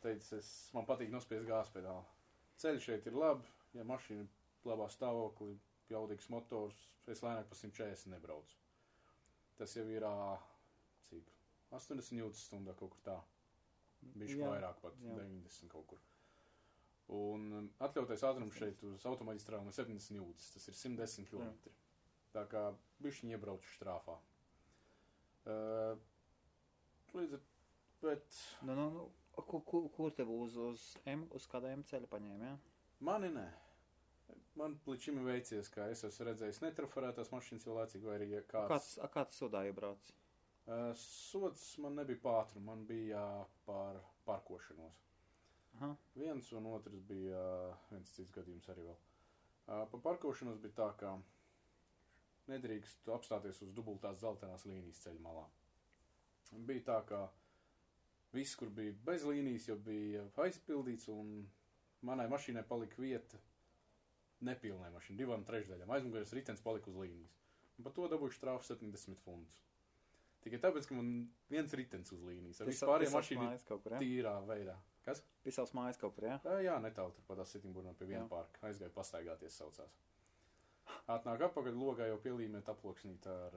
teici, man patīk nospiest gāzpedāli. Ceļš šeit ir labi, ja mašīna labā stāvoklī, jaudīgs motors, es lēnāk pa 140 nebraucu. Tas jau ir, cik, 80 jūtas stundā kaut kur tā. Bišķi vairāk pat, 90 kaut kur. Un atļautais ātrums šeit uz automaģistrālēm ir 70 jūtas, tas ir 110 km. Tā kā bišķiņi iebraucu štrāfā. Bet... Kur tev uz kādā M ceļa paņēma, jā? Mani nē. Man līdz šim ir veicies, ka es esmu redzējis netrafarētās mašīnas jau laicīgi, vai arī kāds... Kāds sodā iebrauc? Sods man nebija pātru, man bija par parkošanos. Aha. Viens un otrs bija viens cits gadījums arī vēl. Par parkošanos bija tā, ka nedrīkst apstāties uz dubultās zeltainās līnijas ceļa malā. Bija tā, ka viss, kur bija bez līnijas, jau bija aizpildīts, un manai mašīnai palika vieta nepilnai mašīnai, 2/3. Aizmugurējais ritenis palika uz līnijas. Un par to dabūju štrāfu 70 fundus. Tikai tāpēc, ka man viens ritenis uz līnijas. Ar vispārējiem mašīnu tīrā veidā. Kas? Pie savas mājas kaut kur, jā? Jā, netālu tur patās Sitimburā pie viena parka. Aizgāju pastaigāties saucās. Atnāk apakaļ, logā jau pielīmēt aploksnīt ar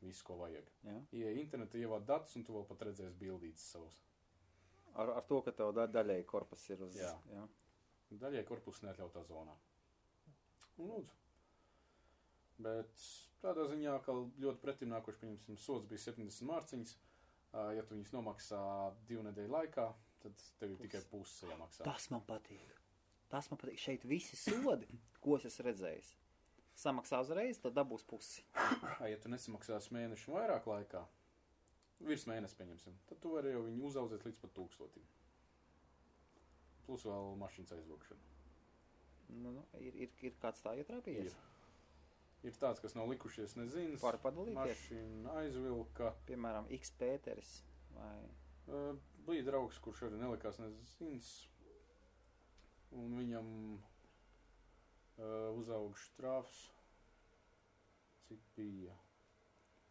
visu, ko vajag. Ieej internetā, ievāc datus, un tu vēl pat redzēsi bildītes savus. Ar to, ka tev daļēji korpus ir uz... Jā. Daļēji korpus neatļautā zonā. Un lūdzu. Bet tādā ziņā, ka ļoti pretim nākoši, pieņemsim, sods bija 70 mārciņas. Ja tu viņus nomaksā 2 nedēļu laikā, tad tev ir tikai puse jāmaksā. Tas man patīk. Šeit visi sodi, ko es esmu redzējis. Samaksā uzreiz, tad dabūs pusi. Ja tu nesamaksās mēnešu vairāk laikā, virs mēnesi pieņemsim, tad tu vari jau viņu uzaudzēt līdz pat 1000. Plus vēl mašīnas aizvokšana. Ir kāds tā ietrāpījies? Ir tāds, kas nav likušies nezinas. Var padalīties? Mašīna aizvilka. Piemēram, X Pēteris vai... Bija draugs, kurš arī nelikās nezinas. Un viņam uzauga štrāfs. Cik bija?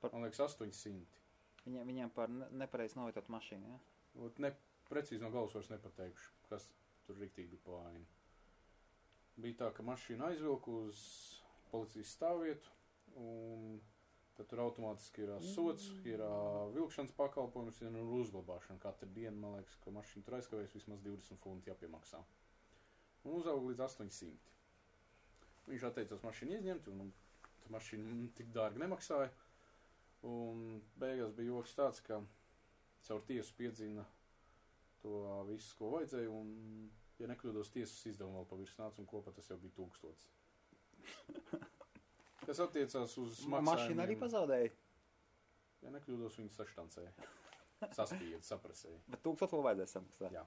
Man liekas 800. Viņam par nepareizi novietot mašīnu, jā? Precīzi no galvas vairs nepateikšu, kas tur riktīgi bija pa vainu. Bija tā, ka mašīna aizvilka uz policijas stāvvietu, un tad tur automātiski ir sods, ir vilkšanas pakalpojums, ir uzglabāšana. Katru dienu, man liekas, ka mašīna tur aizkavējas vismaz 20 funti jāpiemaksā. Un uzauga līdz 800. Viņš atteicās mašīnu izņemt, un mašīna tik dārgi nemaksāja. Un beigās bija joks tāds, ka caur tiesu piedzina to visu, ko vajadzēja, un, ja nekļūdos, tiesas izdevumu vēl pavirs nāca, un kopā tas jau bija 1000. Kas attiecās uz maksājumiem. Mašīna arī pazaudēja? Ja nekļūdos, viņi saštancēja. Saspīja, saprasēja. Bet 1000 vēl vajadzēja samaksāt? Jā.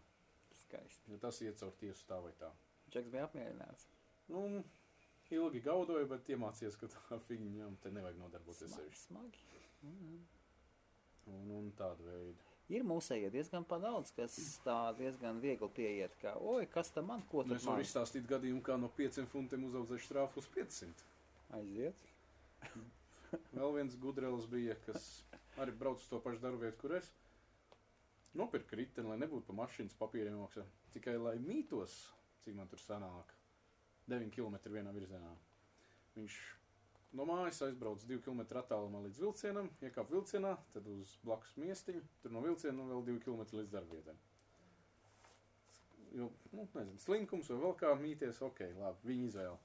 Skaisti. Ja tas iet caur tiesu tā vai tā. Džeks bija apmierināts? Ilgi gaudoju, bet iemācījies, ka tā fiņam te nevajag nodarboties sevišķi. Smagi. Un tāda veida. Ir mūsējie diezgan padaudz, kas tā diezgan viegli pieiet, kā, kas tam man, ko tad man? Es varu izstāstīt gadījumu, kā no 5 funtiem uzaudzēju štrāfu uz 500. Aiziet. Vēl viens gudrelis bija, kas arī brauc uz to pašu darbu vietu, kur es. Nopirka riteni, lai nebūtu pa mašīnas papīriem maksā. Tikai, lai mītos, cik man tur sanāk, 9 km vienā virzienā. Viņš no mājas aizbrauc 2 km attālumā līdz vilcienam, iekāp vilcienā, tad uz blakus miestiņu, tur no vilciena vēl 2 km līdz darbvietai. Jo, nezinu, slinkums vai vēl kā mīties, ok, labi, viņa izvēle.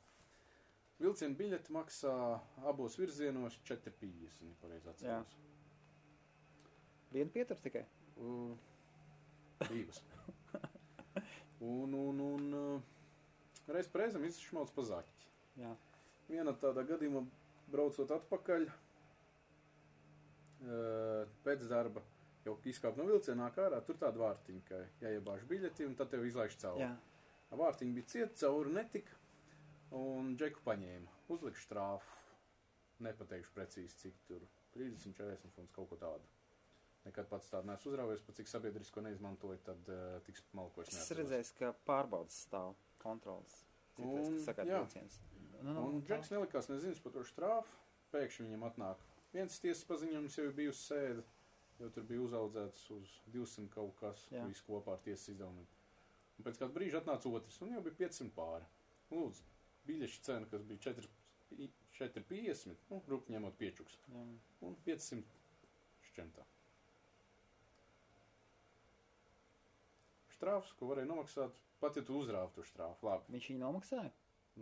Vilciena biļeti maksā abos virzienos 4,50, ja pareizi atceros. Vienu pietur tikai? Divas. Un reiz reizam izšmauc pa zaķi. Jā. Viena tādā gadījumā braucot atpakaļ pēc darba, jau izkāp no vilcienā ārā, tur tāda vārtiņa, ka jāiebāž biļeti un tad tev izlaiž cauri. Vārtiņa bija cieta, cauri netika. Un Džeku paņēma, uzlika štrāfu, nepateikšu precīzi, cik tur, 30, 40 funds, kaut ko tādu. Nekad pats tādu neesmu uzrāvies, pat cik sabiedrisko neizmantoju, tad tiks malkos neatceros. Es redzēju, ka pārbaudas stāv kontrolas. Citreiz, kas sakāt vilciens. Un Džeks nelikās nezinas par to štrāfu, pēkšņi viņam atnāk. Viens tiesas paziņojums jau bija uz sēdi, jo tur bija uzaudzēts uz 200 kaut kas, visu kopā ar tiesas izdevumiem. Un pēc kāda brīža atnāca otrs, un jau bija 500 pāri. Lūdzu. Biļešu cena, kas bija 4,50, rupi ņemot piečuks. Un 500 šķentā. Štrāfs, ko varēja nomaksāt, pat ja tu uzrāvi to štrāfu, labi. Viņš viņu nomaksāja?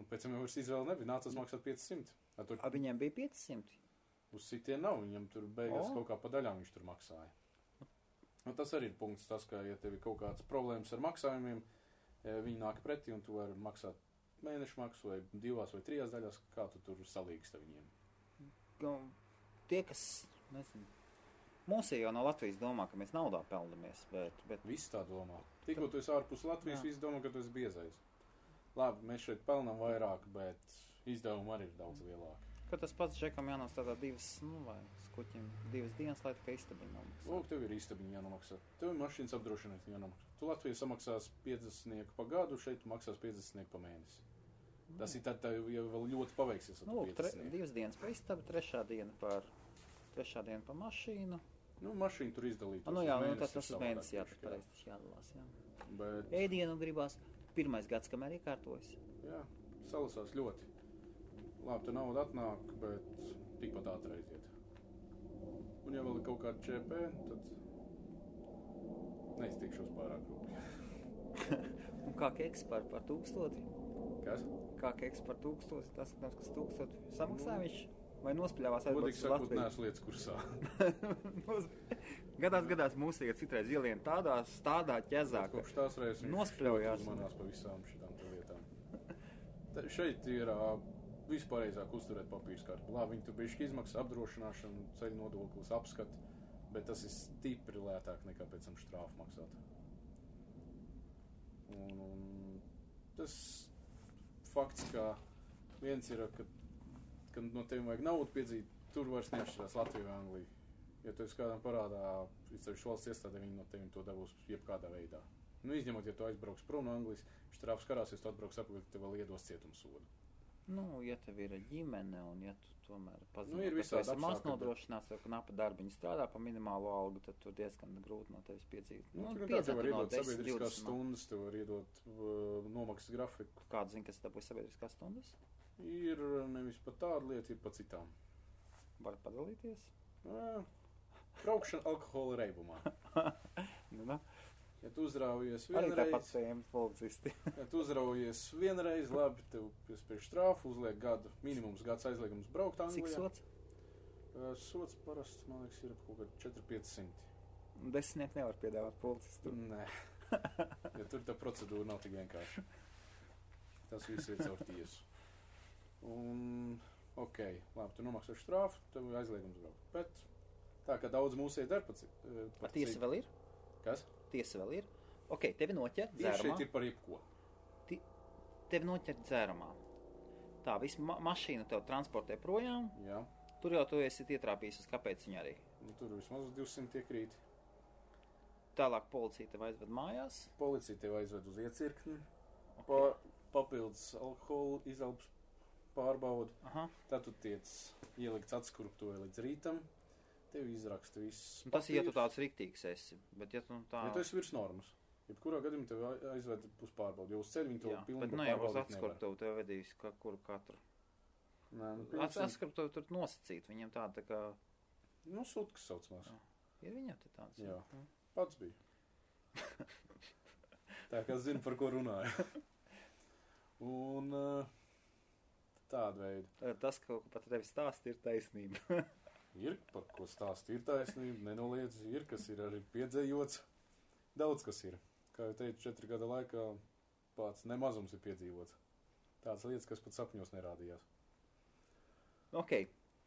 Pēc tam jau vairs izvēle nebija, nācās maksāt 500. Viņiem bija 500? Uz sitien nav, viņam tur beigās kaut kā pa daļām viņš tur maksāja. Tas arī ir punkts tas, ka, ja tev ir kaut kāds problēmas ar maksājumiem, viņi nāk pretī un tu vari maksāt mēnešu maksu vai 2 vai 3 daļās, kā tu tur salīgsti viņiem? Tie, kas, nezinu, mūsī jau no Latvijas domā, ka mēs naudā peldamies, bet... Viss tā domā. Tikko tu esi ārpus Latvijas, visi domā, ka tu esi biezais. Labi, mēs šeit pelnām vairāk, bet izdevumi arī ir daudz lielāki. Ka tas pats Džekam jānostādā 2, vai skuķim 2 dienas, lai tikai istabiņu nomaksā. Lūk, tev ir istabiņu jānomaksā. Tev ir mašīnas apdrošināšana jānomaksā. Tu Latvijā samaksās 50 pa gadu, šeit tu maksās 50 pa mēnesi. Tas ir tad, ja vēl ļoti paveiksies. Lūk, 2 dienas pa istabu, 3. diena par mašīnu. Nu, mašīnu tur izdalīt. Jā, tas uz mēnesi pareizi jādalās, jā. Bet... Ēdienu gribās 1. gads, kamēr iekārtojas. Jā, salasās ļoti. Labi, tu nauda atnāk, bet tikpat ātri aiziet. Un ja vēl ir kaut kāda ČP, tad neiztikšos pārāk rūpīgi. Un kā keks par 1000? Kas? Kā keks par 1000? Tas, kas 1000 samaksā viņš? Vai nospļāvās aizbrauc uz Latviju? Latviju? Neesmu lietas kursā. Gadās mūsu iet citreiz ielien tādā ķezā, ka kopš tās reizes nospļaujās. Uzmanās pa visām šitām lietām. Šeit ir vispārējāk uzturēt papīrs kārtu. Labi, viņi tur bišķi izmaksā apdrošināšanu, ceļu nodoklis, apskati, bet tas ir stipri lētāk nekā pēc tam štrāfu maksāt. Un tas fakts, ka viens ir, ka no tevi vajag naudu piedzīt, tur vairs neatšķirās Latviju vai Angliju. Ja tu esi kādam parādā, izceļš valsts iestādē, viņi no tevi to dabūs jebkādā veidā. Nu, izņemot, ja tu aizbrauks prom no Anglijas, štrāfs karāsies, tu atbrauks apakaļ, tev vēl iedos cietumsodu. Nu, ja tev ir ģimene un ja tu tomēr pazīsti, ir ka tu esi maz apstākļi, nodrošināts, vai knapa darbiņu strādā pa minimālo algu, tad tur diezgan grūti no tevis piedzīt. Tev var iedot sabiedriskās stundas, tev var iedot nomaksas grafiku. Kādu zini, kas dabūja sabiedriskās stundas? Ir nevis pa tādu lietu, ir pa citām. Var padalīties? Braukšana alkohola reibumā. Ja tu uzraujies Arī tāpat vienreiz, tēmas policisti. ja tu uzraujies vienreiz, labi, tev piespiež štrāfu, uzliek gadu, minimums gads aizliegums braukt Anglijā. Cik sots? Sots parasti, man liekas, ir kaut kā 400-500. 10 nevar piedāvāt policistu. Nē, ja tur tā procedūra nav tik vienkārši. Tas viss ir caur tiesu. Un, labi, tu nomaksā štrāfu, tev aizliegums braukt. Bet tā, ka daudz mūsēji dar Ar tiesa vēl ir? Kas? Tiesa vēl ir? Tevi noķer Viņš dzērumā. šeit ir par jebko. Tevi noķer dzērumā. Tā, visu mašīnu tev transportē projām. Jā. Tur jau tu esi ietrāpījis uz kāpēc viņa arī. Nu, tur vismaz 200 iekrīt. Tālāk policija tev aizved mājās. Policija tev aizved uz iecirkni. Papildus alkohola izelpas pārbaudu. Aha. Tad tu tiec ielikts atskurptuvē līdz rītam. Tev izraksta viss. Tas ir, ja tu tāds riktīgs esi. Bet ja tu tā... Ja tu esi virs normas. Jebkurā gadījumā tev aizved uz pārbaudu. Jo uz ceļu viņi to pilnībā pārbaudīt nevar. Bet pārbaudīt uz atskurptuvu tev vedīs kuru katru. Nē, Atskurptuvu tur nosacīt. Viņam tāda tā kā... Nu, sutkas saucamās. Ir viņam te tāds? Jā. Pats bija. Tā kā zinu, par ko runāju. Un tāda veida. Tas, ko pat tevi stāst, ir taisnība. Ir, par ko stāst, ir taisnība, nenoliedz, ir, kas ir arī piedzējots. Daudz kas ir. Kā jau teicu, 4 gada laikā pats nemazums ir piedzīvots. Tādas lietas, kas pat sapņos nerādījās.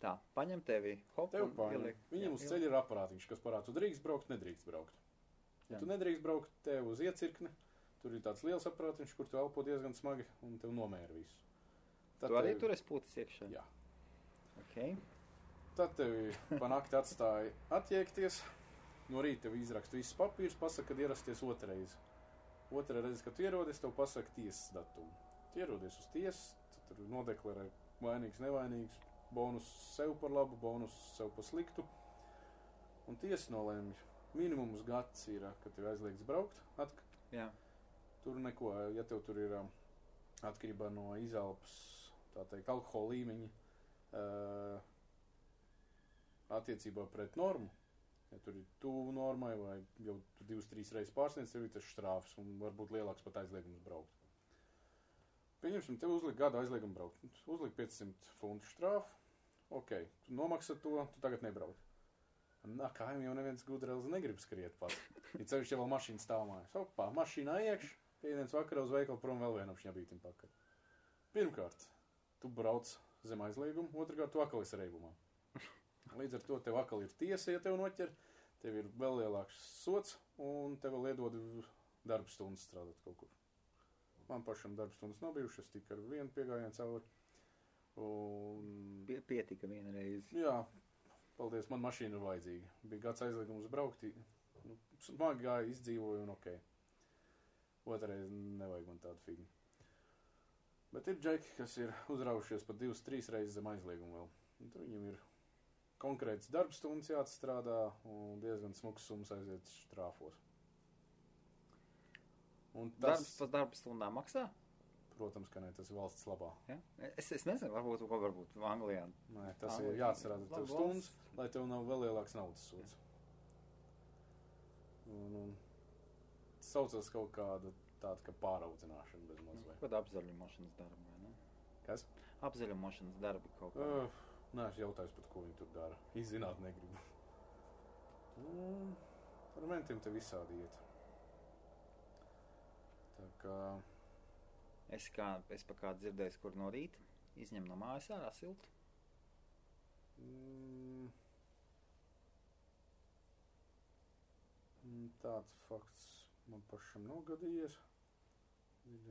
Tā, paņem tevi, hop, tev paņem. Viņam uz ceļa ir aparātiņš, kas parāda, tu drīkst braukt, nedrīkst braukt. Ja tu nedrīkst braukt, tev uz iecirkni, tur ir tāds liels aparātiņš, kur tu elpo diezgan smagi un tev nomēra visu. Tad tu arī tur esi putis iekšā? Jā. Tad tevi pa nakti atstāja attiekties, no rīta tev izraksta visus papīrus, pasaka, kad ierasties otrreiz. Otrā reize, kad tu ierodies, tev pasaka tiesas datumu. Tu ierodies uz tiesu, tad tur nodeklarē vainīgs, nevainīgs, bonus sev par labu, bonus sev par sliktu. Un tiesa nolēmj, minimums gads ir, kad tev aizliegts braukt. Jā. Tur neko, ja tev tur ir atkarībā no izelpas, tā teikt, alkohola līmeņa, attiecībā pret normu, ja tur ir tuvu normai vai jau 2-3 reizes pārsniedz, tev ir tas štrāfs un varbūt lielāks pat aizliegums braukt. Pieņemsim, tev uzliek gadu aizliegumu braukt. Uzliek 500 funtu štrāfu, tu nomaksā to, tu tagad nebrauc. Kājiem jau neviens gudrēlis negrib skriet pat. Ja ceļš jau vēl mašīna stāv mājās. Mašīnā iekš, piediens vakarā uz veikalu prom vēl vienam šņabītim pakaļ. Pirmkārt, tu brauc zem aizlieguma, otrkārt, tu akal esi reibumā. Līdz ar to tev akal ir tiesa, ja tev noķer, tev ir vēl lielāks sots, un tev vēl iedod darba stundas strādāt kaut kur. Man pašam darba stundas nav bijušas, tik ar vienu piegājienu cauri. Un... Pietika vienreiz. Jā, paldies, man mašīna ir vajadzīga. Bija gads aizliegums braukt, smagi gāja, izdzīvoju un ok. Otrais nevajag man tādu figni. Bet ir džeki, kas ir uzraujušies pat 2-3 reizes zem aizliegumu vēl. Un tur viņam ir konkrēts darbstundas jāatstrādā un diezgan smuks summas aiziet štrāfos. Un tas... Darbs par darbstundām maksā? Protams, ka ne, tas ir valsts labā. Ja? Es nezinu, varbūt Anglijā. Nē, tas ir jāatcerās tev stundas, lai tev nav vēl lielāks naudas sods. Un saucas kaut kāda tāda, ka pāraudzināšana bez mazliet. Kāda apzaļumošanas darba, vai ne? Kas? Apzaļumošanas darbi kaut kā. Nē, es jautājos pat, ko viņi tur dara. Izzināt negribu. Ar mentiem te visādi iet. Tā kā... Es pa kādu dzirdējis, kur no rīta izņem no mājas ārā siltu. Tāds fakts man pašam nav gadījies.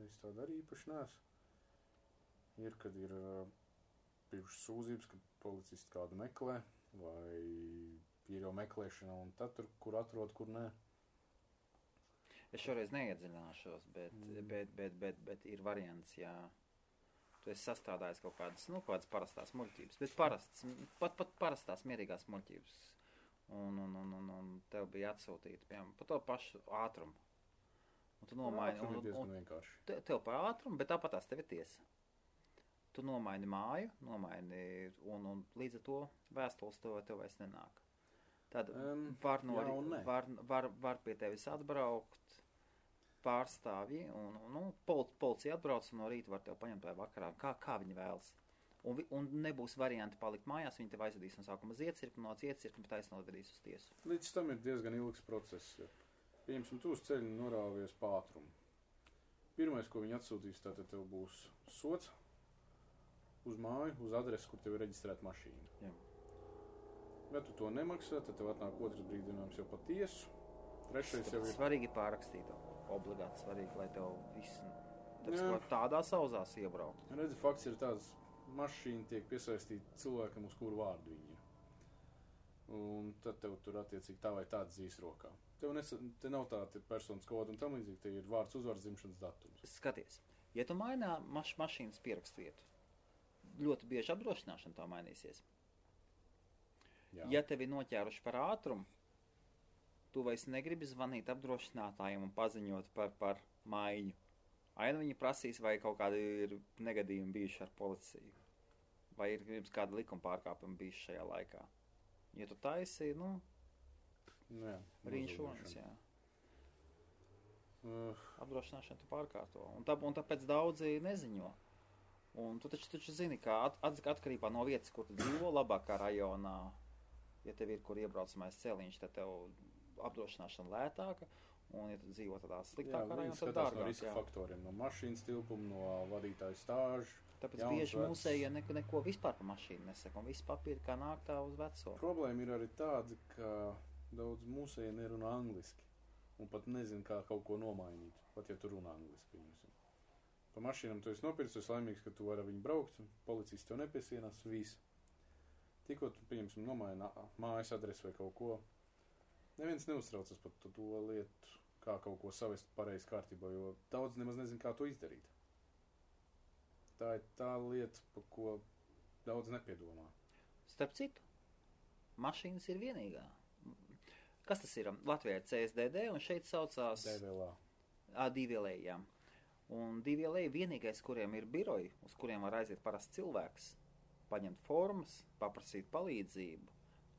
Es tādu arī īpaši neesmu. Ir, kad ir bijušas sūdzības, kad policisti kādu meklē, vai ir jau meklēšana, un tad tur, kur atrod, kur nē. Es šoreiz neiedziļināšos, bet ir variants, ja tu esi sastrādājis kaut kādas parastās muļķības, bet pat parastās mierīgās muļķības, un tev bija atsūtīta, piemēram, pa to pašu ātrumu. Un tu nomaini, ir diezgan vienkārši. Tev pa ātrumu, bet tāpatās tev ir tiesa. Tu nomaini māju, un līdz ar to vēstules tev vairs nenāk. Tad var pie tevis atbraukt pārstāvji, un policija atbrauc, un no rīta var tev paņemt vai vakarā, kā viņi vēlas. Un nebūs varianti palikt mājās, viņi tev aizvedīs no sākuma uz iecirkni, no iecirkni taisnovedīs uz tiesu. Līdz tam ir diezgan ilgs process. Ja. Pieņemsim, tu uz ceļu norāvies pa ātrumu. Pirmais, ko viņi atsūtīs, tātad tev būs sots uz māju, uz adresi, kur tev ir reģistrēta mašīna. Jā. Ja tu to nemaksā, tad tev atnāk otrs brīdinājums jau pa tiesu. Trešais jau ir... Svarīgi pārrakstīt. Obligāti svarīgi, lai tev viss tādā sauzās iebraukt. Redzi, fakts ir tāds, mašīna tiek piesaistīta cilvēkam, uz kuru vārdu viņi ir. Un tad tev tur attiecīgi tā vai tāds dzīs rokā. Te nav tāda personas koda un tam līdzīgi, te ir vārds, uzvārds, dzimšanas datums. Skaties, ja tu mainā mašīnas pierakstietu, ļoti bieži apdrošināšana tā mainīsies. Jā. Ja tevi noķēruši par ātrumu, tu vairs negribi zvanīt apdrošinātājiem un paziņot par maiņu. Aina viņi prasīs, vai kaut kādi ir negadījumi bijuši ar policiju. Vai ir gribas kāda likuma pārkāpuma bijuši šajā laikā. Ja tu taisi, rīņšonis, jā. Apdrošināšana tu pārkārto. Un tāpēc daudzi neziņo. Un tu taču zini, ka atkarībā no vietas, kur tu dzīvo, labākā rajonā, ja tev ir, kur iebraucamais celiņš, tad tev apdrošināšana lētāka, un ja tu dzīvo tādā sliktākā rajonā, tad dārgāk. No riska faktoriem, no mašīnas tilpuma, no vadītāju stāžu. Tāpēc bieži mūsējie neko vispār par mašīnu nesaka, un viss papīri kā nāk tā uz veco. Problēma ir arī tāda, ka daudz mūsējie nerunā angliski, un pat nezin, kā kaut ko nomainīt, pat ja tu runā angliski. Pa mašīnām tu esi nopircis, tu esi laimīgs, ka tu vari ar viņu braukt, policists tev nepiesienās, viss. Tikko tu, pieņemsim, nomaini mājas adresi vai kaut ko, neviens neuztraucas par to lietu, kā kaut ko savest pareizi kārtībā, jo daudz nemaz nezin, kā to izdarīt. Tā ir tā lieta, par ko daudz nepiedomā. Starp citu, mašīnas ir vienīgā. Kas tas ir? Latvijā ir CSDD, un šeit saucās... DVLA. DVLA, jā. Un DVLA vienīgais, kuriem ir biroji, uz kuriem var aiziet parasts cilvēks, paņemt formas, paprasīt palīdzību,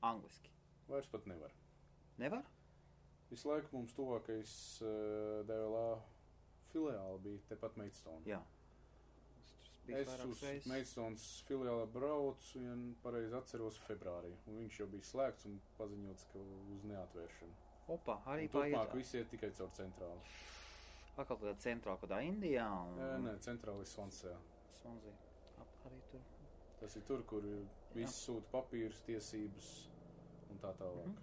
angliski. Vairs pat nevar. Nevar? Visu laiku mums tuvākais DVLA filiāli bija tepat Maidstone. Jā. Es uz Maidstones filiāli braucu, ja pareizi atceros, februārī. Un viņš jau bija slēgts un paziņots, ka uz neatvēršanu. Opa, arī paiet. Turpmāk visi iet tikai caur centrāli. Atkal tādā centrāli, kādā Indijā? Nē, centrāli Svansejā. Swansea. Arī tur. Tas ir tur, kur viss sūta papīrus, tiesības un tā tālāk.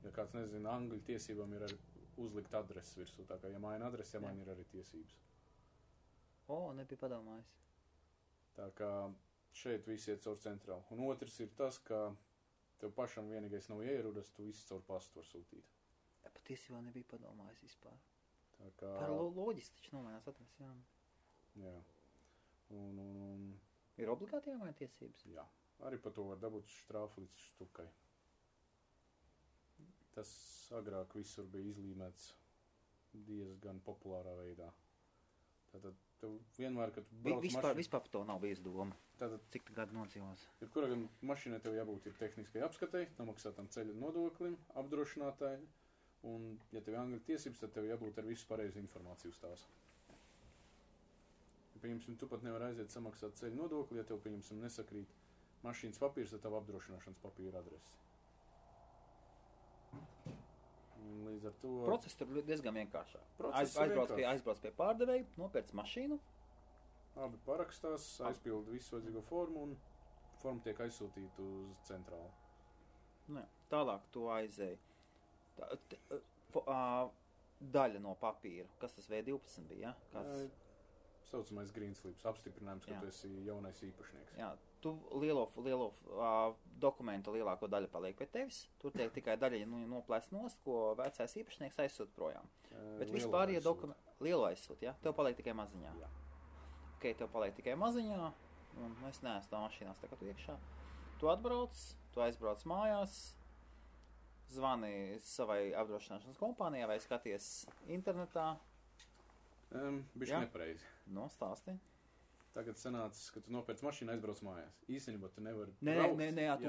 Ja kāds nezina, angļu tiesībām ir arī uzlikt adreses virsū, tā kā ja maina adresi, ja maina ir arī tiesības. Nebija padomājis. Tā kā šeit viss iet caur centrālu. Un otrs ir tas, ka tev pašam vienīgais nav ierudas, tu viss caur pastu var sūtīt. Ja, patiesībā nebija padomājis vispār. Tā kā... Par loģiski taču nomainās adresi, jā. Jā. Un... Ir obligāti jāmaina tiesības? Jā. Arī par to var dabūt štrāfu līdz štukai. Tas agrāk visur bija izlīmēts diezgan populārā veidā. Tātad tev vienmēr, kad tu brauc Vispār par to nav bijis doma. Tātad, cik tu gadu nodzīvos? Jebkurā gan mašīnai tev jābūt ir tehniskai apskatei, nomaksātam ceļa nodoklim, apdrošinātāji, un, ja tev angļu tiesības, tad tev jābūt ar visu pareizu informāciju uz tās. Ja, pieņemsim, tu pat nevar aiziet samaksāt ceļa nodokli, ja tev, pieņemsim, nesakrīt mašīnas papīrs ar tavu apdrošināšanas papīra adresi. Un līdz ar to... Process tur diezgan vienkāršāk. Aizbrauc pie pārdevēja, nopērc mašīnu. Abi parakstās, aizpilda visu vajadzīgo formu un forma tiek aizsūtīta uz centrālu. Ne, tālāk tu aizēji. Daļa no papīra. Kas tas V12 bija? Ja? Saucamais green slips, apstiprinājums, ka tu esi jaunais īpašnieks. Jā, tu lielo dokumentu lielāko daļu paliek pie tevis. Tur tiek tikai daļa noplēst nost, ko vecais īpašnieks aizsūt projām. Bet vispār, ja lielo aizsūt, ja? Tev paliek tikai maziņā. Jā. Ok, tev paliek tikai maziņā, un es neesmu tā mašīnās tagad iekšā. Tu atbrauc, tu aizbrauc mājās, zvani savai apdrošināšanas kompānijai vai skaties internetā. Bišķi nepareizi. Stāsti. Tagad sanācis, ka tu nopērc mašīnu, aizbrauc mājās. Īstenībā tu nevari braukt. Ar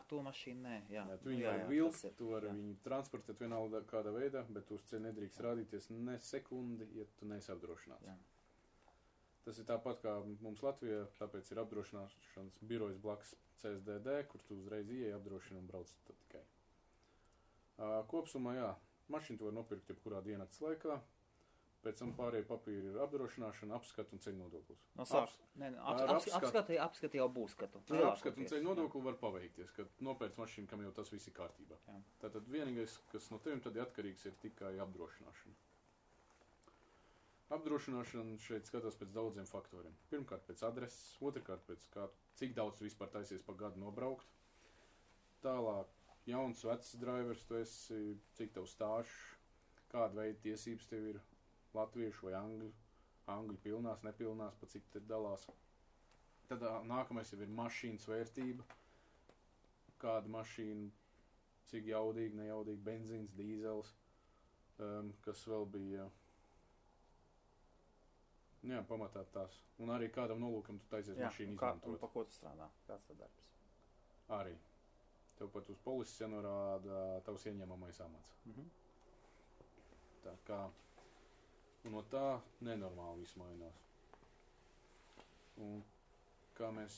to mašīnu nē. Jā, tu viņu vari vilkt, tu vari viņu transportēt vienalga kādā veidā, bet tu uz ceļa nedrīkst rādīties ne sekundi, ja tu neesi apdrošināts. Jā. Tas ir tāpat kā mums Latvijā, tāpēc ir apdrošināšanas birojas blakus CSDD, kur tu uzreiz ieej apdrošina un brauc tad tikai. Kopsumā, jā, mašīnu tu var nopirkt jebkurā diennakts laikā. Pēc tam pārējie papīri ir apdrošināšana, apskata un ceļu nodoklis. Apskata jau būs skatu. Ar apskatu un ceļu nodokli var paveikties, kad nopērc mašīnu, kam jau tas viss ir kārtībā. Jā. Tātad vienīgais, kas no tevim tad atkarīgs, ir tikai apdrošināšana. Apdrošināšana šeit skatās pēc daudziem faktoriem. Pirmkārt pēc adreses, otrkārt pēc cik daudz tu vispār taisies pa gadu nobraukt. Tālāk, jauns, vecs drivers tu esi, cik tev stāžs, kāda veida tiesības tev ir. Latviešu vai angļu pilnās, nepilnās, pa cik te dalās. Tad nākamais jau ir mašīnas vērtība. Kāda mašīna, cik jaudīga, nejaudīga, benzīns, dīzels, kas vēl bija, jā, pamatā tās. Un arī kādam nolūkam tu taisies mašīnu izmantot. Un pa ko tu strādā? Kāds tad darbs? Arī. Tev pat uz polises jānorāda tavs ieņemamais amats. Tā kā... Un no tā nenormāli viss mainās. Un kā mēs,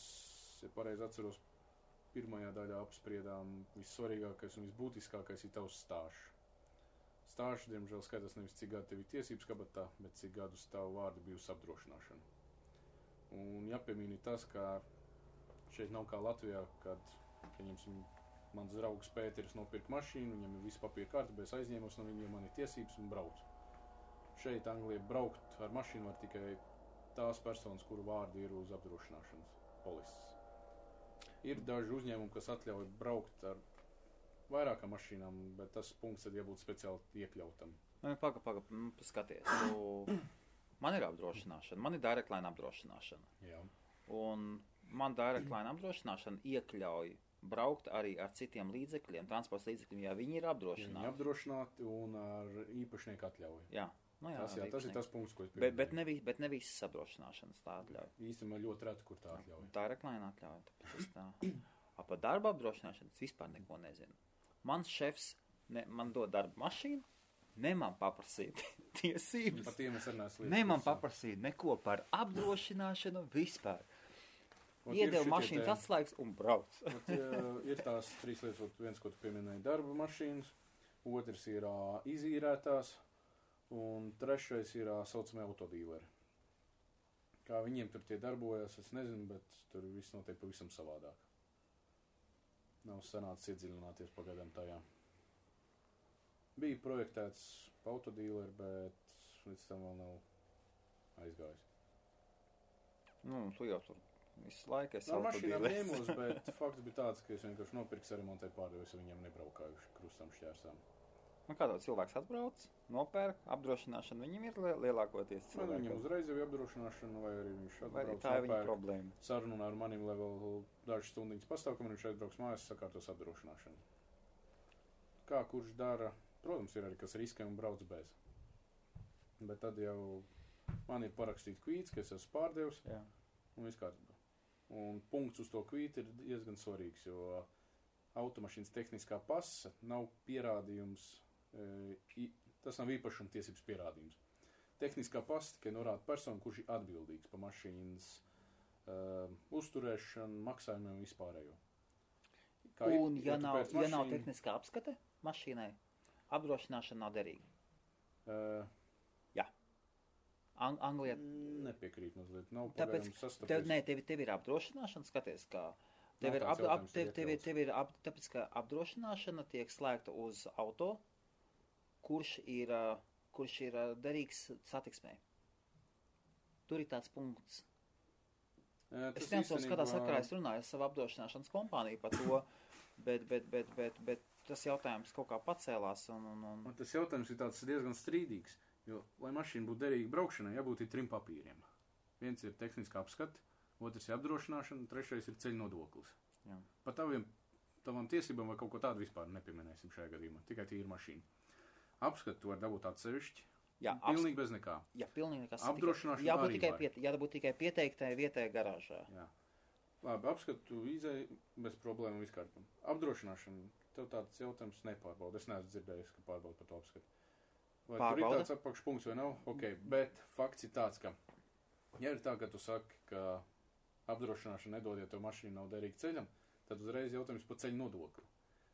ja pareizi atceros, pirmajā daļā apspriedām, vissvarīgākais un visbūtiskākais ir tavs stāžs. Stāžs, diemžēl, skatās nevis cik gadu tev ir tiesības kabatā, bet cik gadus tavu vārdu bijusi apdrošināšana. Un jāpiemīna tas, ka šeit nav kā Latvijā, kad, pieņemsim, mans draugs Pēteris nopirka mašīnu, viņam ir viss papīra kārtībā, es aizņēmos no viņiem, man ir tiesības un braucu. Šeit Anglijā braukt ar mašīnu var tikai tās personas, kuru vārdi ir uz apdrošināšanas polises. Ir daži uzņēmumi, kas atļauj braukt ar vairākām mašīnām, bet tas punkts tad jābūt speciāli iekļautam. Skaties. Man ir apdrošināšana, man ir direct line apdrošināšana. Jā. Un man direct line apdrošināšana iekļauj braukt arī ar citiem līdzekļiem, transporta līdzekļiem, ja viņi ir apdrošināti. Viņi apdrošināti un ar īpašnieku atļauju. Jā. Tas ir tas punkts, ko es pieminēju. Bet ne visas apdrošināšanas tā atļauj. Īstenībā ļoti reti, kur tā atļauj. Tā ir reklāna atļauj. Par darba apdrošināšanas vispār neko nezinu. Mans šefs man dod darba mašīnu, ne man paprasīt tiesības. Par tiem es arī neesmu ne man paprasīt neko par apdrošināšanu vispār. Iedeva mašīnas atslēgas un brauc. Ir tās trīs lietas, viens, ko tu pieminēji, darba mašīnas, otrs ir izīrētās, un trešais ir saucamie autodīleri. Kā viņiem tur tie darbojas, es nezinu, bet tur viss notiek pavisam savādāk. Nav sanācis iedziļināties pagaidām tajā. Bija projektēts autodīleri, bet līdz tam vēl nav aizgājis. Tu jau tur visu laiku esi Ar mašīnām autodīleris. ņēmos, bet fakts bija tāds, ka es vienkārši nopirku saremontēju pārdevis, viņiem nebraukājuši krustam šķērsām. Kā tāds cilvēks atbrauc, nopērk, apdrošināšana viņam ir lielākoties Viņam cilvēkiem. uzreiz jau ir apdrošināšana, vai arī viņš Vai arī atbrauc, tā ir viņa nopērk, problēma? sarunā ar manim, lai vēl dažas stundiņas pastāv, kamēr viņš aizbrauks mājās, sakārtos apdrošināšanu. Kā kurš dara, protams, ir arī kas riskē un brauc bez. Bet tad jau man ir parakstīts kvīts, ka es esmu pārdevis, Jā. un viss kārtībā. Un punkts uz to kvītu ir diezgan svarīgs, jo automašīnas tehniskā pasa nav pierādījums, tas nav īpašuma tiesības pierādījums. Tehniskā pasa tikai norāda personu, kurš ir atbildīgs par mašīnas uzturēšanu, maksājumiem un vispārējo. Un ja nav tehniskā apskate mašīnai, apdrošināšana nav derīga. Jā. Anglijā. Nepiekrīt mazliet. Nav Tāpēc, pagaidām sastapies. tev ir apdrošināšana, skaties, kā Nav tāds jautājums, tāpēc, ka apdrošināšana tiek slēgta uz auto, kurš ir derīgs satiksmē. Tur ir tāds punkts. Es nezinu, kādā sakarā es runāju ar savu apdrošināšanas kompāniju par to, bet tas jautājums kaut kā pacēlās. Un tas jautājums ir tāds diezgan strīdīgs, jo, lai mašīna būtu derīga braukšanai, jābūt ir 3 papīriem. Viens ir tehniskā apskate, otrs ir apdrošināšana, trešais ir ceļu nodoklis. Jā. Par tavām tiesībām vai kaut ko tādu vispār nepieminēsim šajā gadījumā, tikai tīra mašīna. Apskatu tu var dabūt atsevišķi, pilnīgi bez nekā. Jā, pilnīgi nekas. Apdrošināšana Jābūt arī var. jābūt tikai pieteiktai vietai garāžā. Jā. Labi, apskatu izēju bez problēmu viskārtām. Apdrošināšana, tev tāds jautājums nepārbauda. Es neesmu dzirdējis, ka pārbauda par to apskatu. Vai tur ir tāds apakšpunkts vai nav? Ok, bet fakts ir tāds, ka, ja ir tā, ka tu saki, ka apdrošināšana nedod, ja tev mašīna nav derīga ceļam, tad uzreiz jautājums par ceļu nodokli.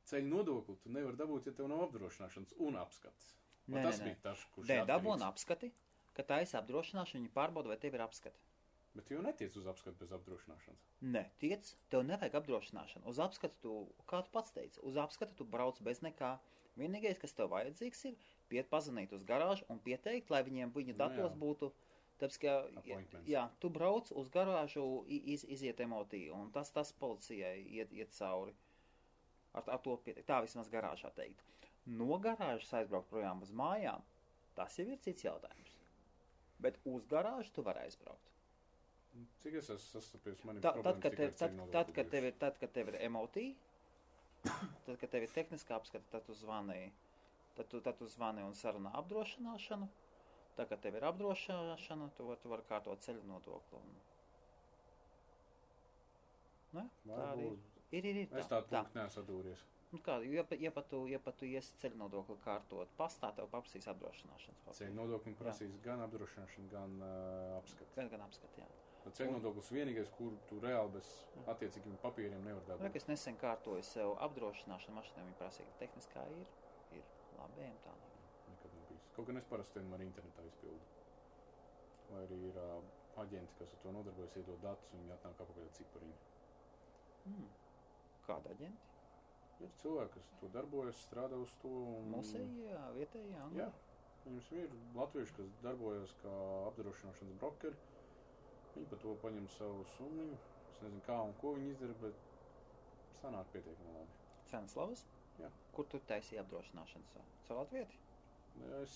Ceļu nodokli tu nevar dabūt, ja tev nav apdrošināšanas un apskates. Tas bija tas, kurš ir dabūna apskati, ka tā esi apdrošināšana, viņi pārbauda, vai tev ir apskati. Bet tu jau netiec uz apskatu bez apdrošināšanas. Nē, tiec, tev nevajag apdrošināšanu. Uz apskatu tu, kā tu pats teici, uz apskatu tu brauc bez nekā. Vienīgais, kas tev vajadzīgs ir, pazvanīt uz garāžu un pieteikt, lai viņiem viņu datos būtu. Tāpēc, ka, tu brauc uz garāžu, iziet emotī, un tas policijai iet cauri. Ar to pieteikt. Tā vismaz garāžā teikt. No garāžas aizbraukt projām uz mājām, tas jau ir cits jautājums. Bet uz garāžu tu vari aizbraukt. Cik es esmu sastapies, man ir Tad, problēmas kad tikai ar ceļu nodokli. tad, kad tev ir emotī, tad, kad tev ir tehniskā apskata, tad tu zvani un sarunā apdrošināšanu. Tad, kad tev ir apdrošināšana, tu vari kārtot ceļu nodokli. Ne? Tā arī ir. Es tādu punktu neesmu atdūries. Ja pat tu iesi ceļu nodokli kārtot pastā, tev paprasīs apdrošināšanas papīru. Ceļu nodoklim prasīs gan apdrošināšanu, gan apskati. Gan apskati, jā. Ceļu nodoklis vienīgais, kur tu reāli bez attiecīgiem papīriem nevar dabūt. Es nesen kārtoju sev apdrošināšanu mašīnai, viņi prasīja, ka tehniskā ir labi, tā nav. Nekad nav bijis. Kaut gan es parasti vienmēr internetā izpildu. Vai arī ir aģenti, kas ar to nodarbojas, iedod datus un viņi atnāk apakaļ ar cipariņu. Kāda aģenti? Ir cilvēki, kas to darbojas, strādā uz to. Mūsējie, vietējie, Angļi? Jā. Viņus ir latvieši, kas darbojas kā apdrošināšanas brokeri. Viņi par to paņem savu summu. Es nezinu, kā un ko viņi izdara, bet sanāk pietiekami labi. Ceneslavas? Jā. Kur tu taisīji apdrošināšanas? Caur Latvieti? Es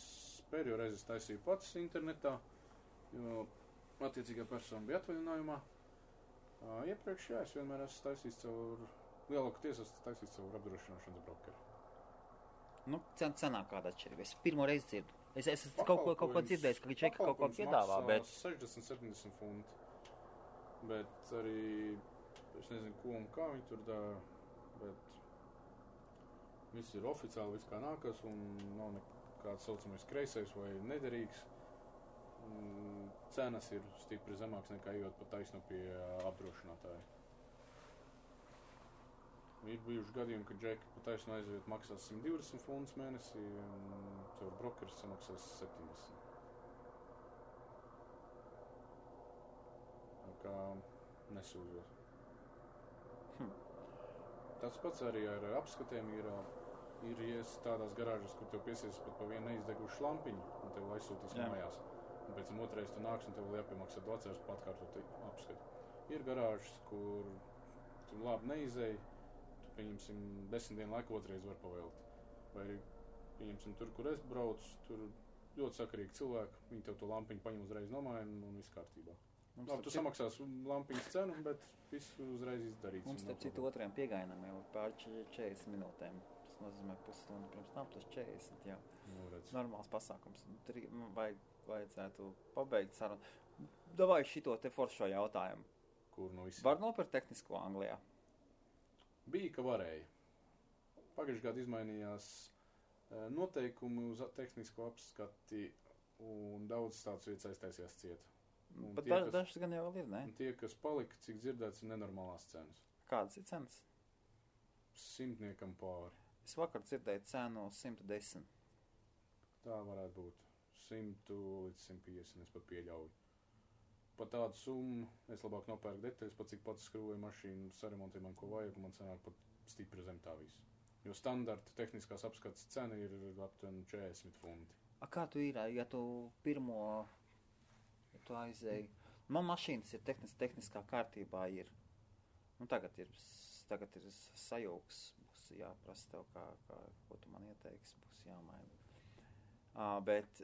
pēdējo reizi taisīju pats internetā, jo attiecīgā persona bija atvaļinājumā. Iepriekš, jā, es vienmēr esmu taisījis caur lielākoties esmu taisījis caur apdrošināšanas brokeri. Cenā kāda atšķirība? Es pirmo reizi dzirdu. Es esmu kaut ko dzirdējis, ka viņš kaut ko piedāvā, bet 60-70 funti. Bet arī, es nezinu, ko un kā viņi tur dara, bet viss ir oficiāli, viss kā nākas, un nav nekāds saucamais kreisais vai nederīgs. Cenas ir stipri zemāks nekā ejot pa taisnu pie apdrošinātāja. Ir bijuši gadījumi, ka džeki pa taisnu aiziet maksās 120 funtus mēnesī, un caur brokeris samaksās 70. kā nesūdzos. Tas pats arī ar apskatiem ir tādās garāžas, kur tev piesies pat pa vienu neizdegušu lampiņu, un tev aizsūtīs mājās. Un pēc tam otrais tu nāks, un tev vēl jāpiemaksā tu atceries pa atkārtot apskati. Ir garāžas, kur tu labi neizēji, tu, pieņemsim, 10 dienu laiku otrais var pavēlt. Vai arī, pieņemsim, tur, kur es braucu, tur ļoti sakarīgi cilvēki, viņi tev to lampiņu paņem uzreiz nomāja un viss kārtībā. Labi, tu samaksās lampiņas cenu, bet viss uzreiz izdarīts. Mums te citu otrajam piegainam jau pār 40 minūtēm. Tas nozīmē pusstundu pirms tam, tas 40 jau. Normāls pasākums. Vajadzētu pabeigt sarunu. Davai šito te foršo jautājumu. Kur no visiem? Var nopirkt tehnisko Anglijā? Bija, ka varēja. Pagājušajā gadā izmainījās noteikumi uz tehnisko apskati, un daudz tāds vietas aiztaisījās ciet. Bet dažs gan jau vēl ir, ne? Un tie, kas palika, cik dzirdēts, ir nenormālās cenas. Kādas ir cenas? 100 pāri. Es vakar dzirdēju cenu 110. Tā varētu būt. 100 līdz 150, es pat pieļauju. Par tādu summu es labāk nopērku detaļas, pat cik pats skrūvēju mašīnu, saremontēju man, ko vajag, un man sanāk pat stipri zem tā visu. Jo standarta tehniskās apskates cena ir aptuveni 40 funti. Kā tu ir, ja tu pirmo, ja tu aizēji? Man mašīnas ir tehniskā kārtībā ir. Nu, tagad ir sajūgs, būs jāprasa tev, ko tu man ieteiksi, būs jāmaina. Bet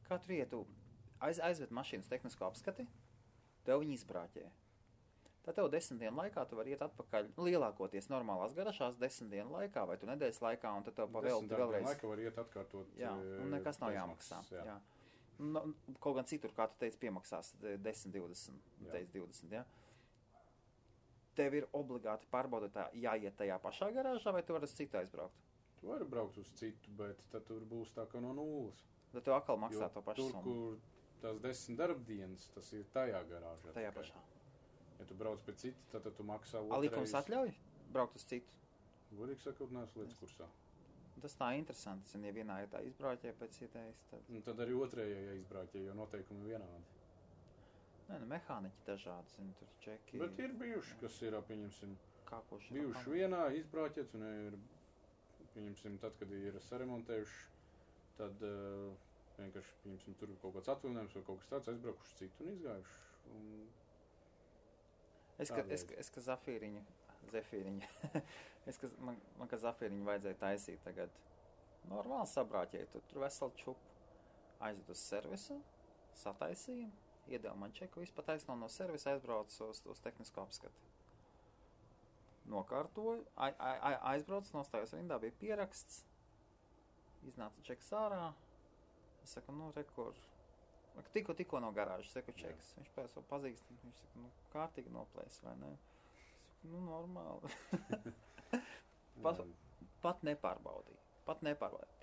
kā tu ietu? Aizved mašīnas tehnisko apskati, tev viņi izbrāķē. Tad tev 10 dienu laikā tu vari iet atpakaļ, lielākoties normālās garažās 10 dienu laikā vai tu nedēļas laikā, un tad tev pavēlti vēlreiz. 10 dienu laikā var iet atkārtot. Jā, un nekas nav jāmaksā. Jā. Kaut gan citur, kā tu teici, piemaksās 10, 20, teici 20, jā. Tev ir obligāti pārbaudotā jāiet tajā pašā garāžā, vai tu vari uz citu aizbraukt? Tu vari braukt uz citu, bet tad tur būs tā kā no nulles. Tad tev atkal maksā to pašu summu. Tur, kur tās 10 darbdienas, tas ir tajā garāžā. Tajā pašā. Ja tu brauc pie citu, tad tu maksā otrais. Likums atļauj braukt uz citu? Godīgi sakot, neesmu līdz kursā. Tas tā interesanti, ja vienā ir tā izbrauķē pēc ietējas, tad... Un tad arī otrējā izbrauķē, jo noteikumi vienādi. Nē, mehāniķi dažādi, zini, tur čeki... Bet ir bijuši, kas ir, pieņemsim, kākoši bijuši vienā izbrauķēts, un ir, pieņemsim, tad, kad ir saremontējuši, tad vienkārši, pieņemsim, tur kaut kāds atvilinājums vai kaut kas tāds, aizbraukuši citu un izgājuši. Un... Es ka Zafīriņu, man ka Zafīriņu vajadzēja taisīt tagad normāli sabrāķēt, tur veselu čupu aizved uz servisu, sataisīju, iedeva man čeku, visu pataisno no servisa, aizbraucu uz tehnisko apskati. Nokārtoju, aizbraucu, nostājos rindā, bija pieraksts, iznāca čeks ārā, es saku, rekur, tikko no garāžas, seku čeks. Viņš pēc vēl pazīst, viņš saka, kārtīgi noplēs, vai ne? Es saku, normāli. Pat nepārbaudīja.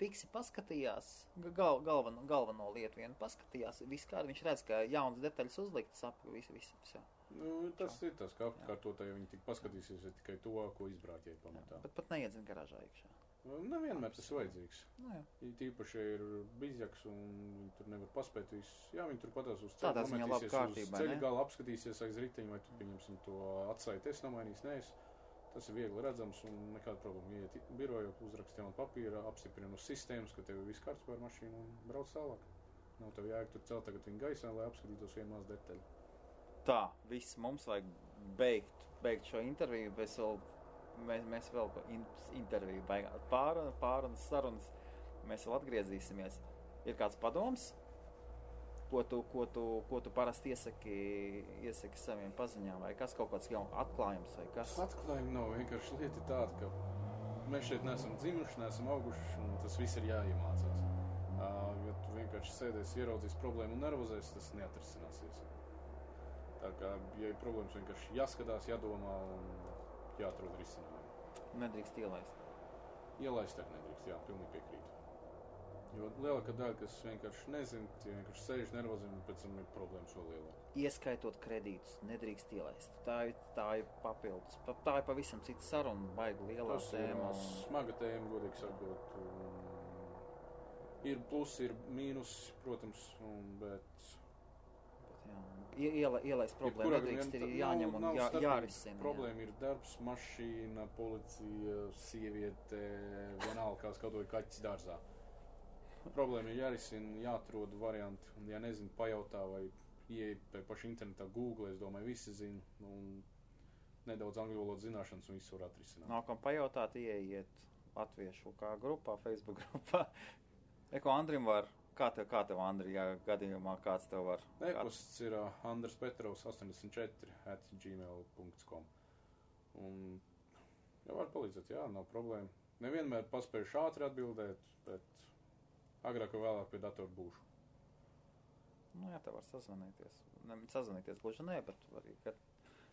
Fiksi paskatījās, galveno lietu vienu paskatījās, viss kādi, viņš redz, ka jaunas detaļas uzliktas ap visu. Jā. Tas ir tas, ka apkārtotāji viņi tik paskatīsies tikai to, ko izbrāķēja pamatā. Bet pat neiedzina garāžā iekšā. Nevienmēr tas ir vajadzīgs. Tīpaši ir bizjaks un viņi tur nevar paspēt visu. Jā, viņi tur patās uz ceļu, nometīsies uz ceļu gala, apskatīsies aiz riteņu, vai tu pieņemsim to atsaitu, es nomainīs, nees. Tas ir viegli redzams un nekāda problēma. Iet biroju, uzrakst jaunu papīru, apstiprina uz sistēmas, ka tev ir viss kārtībā ar mašīnu un brauc tālāk. Nav tev jājag tur celt tagad viņu gaisā, lai apskatītos vienu maz detaļu. Tā, viss mums vajag beigt šo interviju, mēs vēl interviju beigās pārunas sarunas, mēs vēl atgriezīsimies. Ir kāds padoms, ko tu parasti iesaki saviem paziņām, vai kas kaut kāds jaunu atklājums, vai kas? Atklājumi nav, vienkārši lieta tāda, ka mēs šeit neesam dzimuši, neesam auguši, un tas viss ir jāiemācās. Ja tu vienkārši sēdēsi, ieraudzīs problēmu un nervozēs, tas neatrisināsies. Tā kā, ja ir problēmas, vienkārši jāskatās, jādomā un jāatrod risinājumu. Nedrīkst ielaist. Ielaist arī nedrīkst, jā, pilnīgi piekrītu. Jo lielākā daļa, kas vienkārši nezin, tie vienkārši sēž nervozim un pēc tam ir problēmas vēl lielāk. Ieskaitot kredītus, nedrīkst ielaist. Tā ir papildus. Tā ir pavisam cita saruna, baigi lielā tēma. Tas ir smaga tēma, godīgi sakot. Ir plusi, ir mīnus, protams, bet Ielaist problēmu nedrīkst, ir jāņem un jārisina. Problēma ir darbs, mašīna, policija, sieviete, vienalga kā skatoja kaķis dārzā. Problēma ir jārisina, jāatrod varianti, un ja nezinu, pajautā vai ieej pie paša internetā Google, es domāju, visi zina, un nedaudz angļu valodas zināšanas un visu var atrisināt. Nākam pajautāt, ieiet latviešu kā grupā, Facebook grupā. Andrim var, kā tev Andri, ja gadījumā kāds tev var? E-pasts ir andrespetrovs84@gmail.com un jau var palīdzēt, jā, nav problēma. Nevienmēr paspējuši ātri atbildēt, bet agrāk vai vēlāk pie datoru būšu. Jā, tev var sazvanīties. Sazvanīties gluži nē, bet arī, kad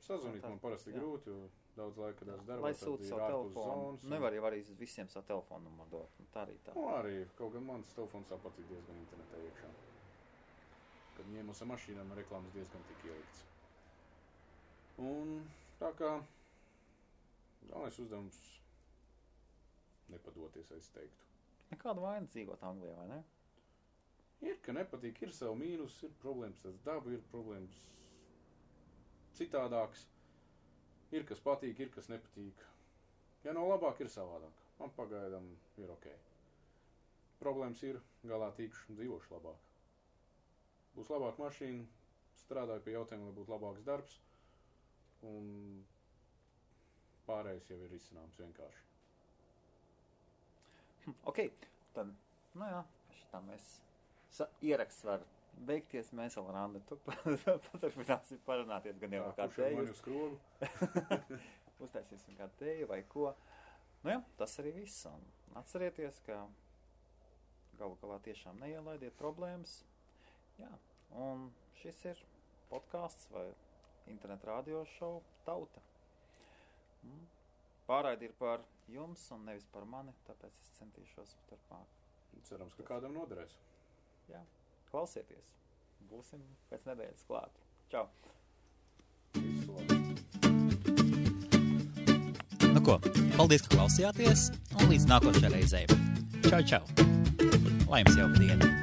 sazvanīt man parasti grūti, jo daudz laika darbs darbā. Lai sūta savu telefonu. Nevar jau arī visiem savu telefonu numuru dot. Tā arī tā. Arī, kaut gan mans telefons tāpat ir diezgan internetā iekšā. Kad ņēmos ar mašīnām, reklāmas diezgan tik ielikts. Un tā kā galvenais uzdevums nepadoties, es teiktu. Nekāda vaina dzīvot Anglijā, vai ne? Ir, ka nepatīk, ir savu mīnus, ir problēmas ar dabu, ir problēmas citādāks. Ir, kas patīk, ir, kas nepatīk. Ja nav labāk, ir savādāk. Man pagaidām ir ok. Problēmas ir, galā tīkšu, dzīvošu labāk. Būs labāk mašīna, strādāju pie jautājuma, lai būtu labāks darbs, un pārējais jau ir izcināms vienkārši. Ok, tad, šitā mēs ieraksts var beigties, mēs vēl ar Andri paturpināsim parunāties, gan jau kā tēju. Uztaisīsim kā tēju vai ko. Tas arī viss. Un atcerieties, ka galu galā tiešām neielaidiet problēmas. Jā, un šis ir podcasts vai internet radio šovu Tauta. Pārraidi ir par jums un nevis par mani, tāpēc es centīšos turpmāk. Cerams, ka kādam noderēs. Jā, klausieties. Būsim pēc nedēļas klāt. Čau! Nu ko, paldies, ka klausījāties, un līdz nākošajai reizei. Čau, čau! Lai jums jauka diena!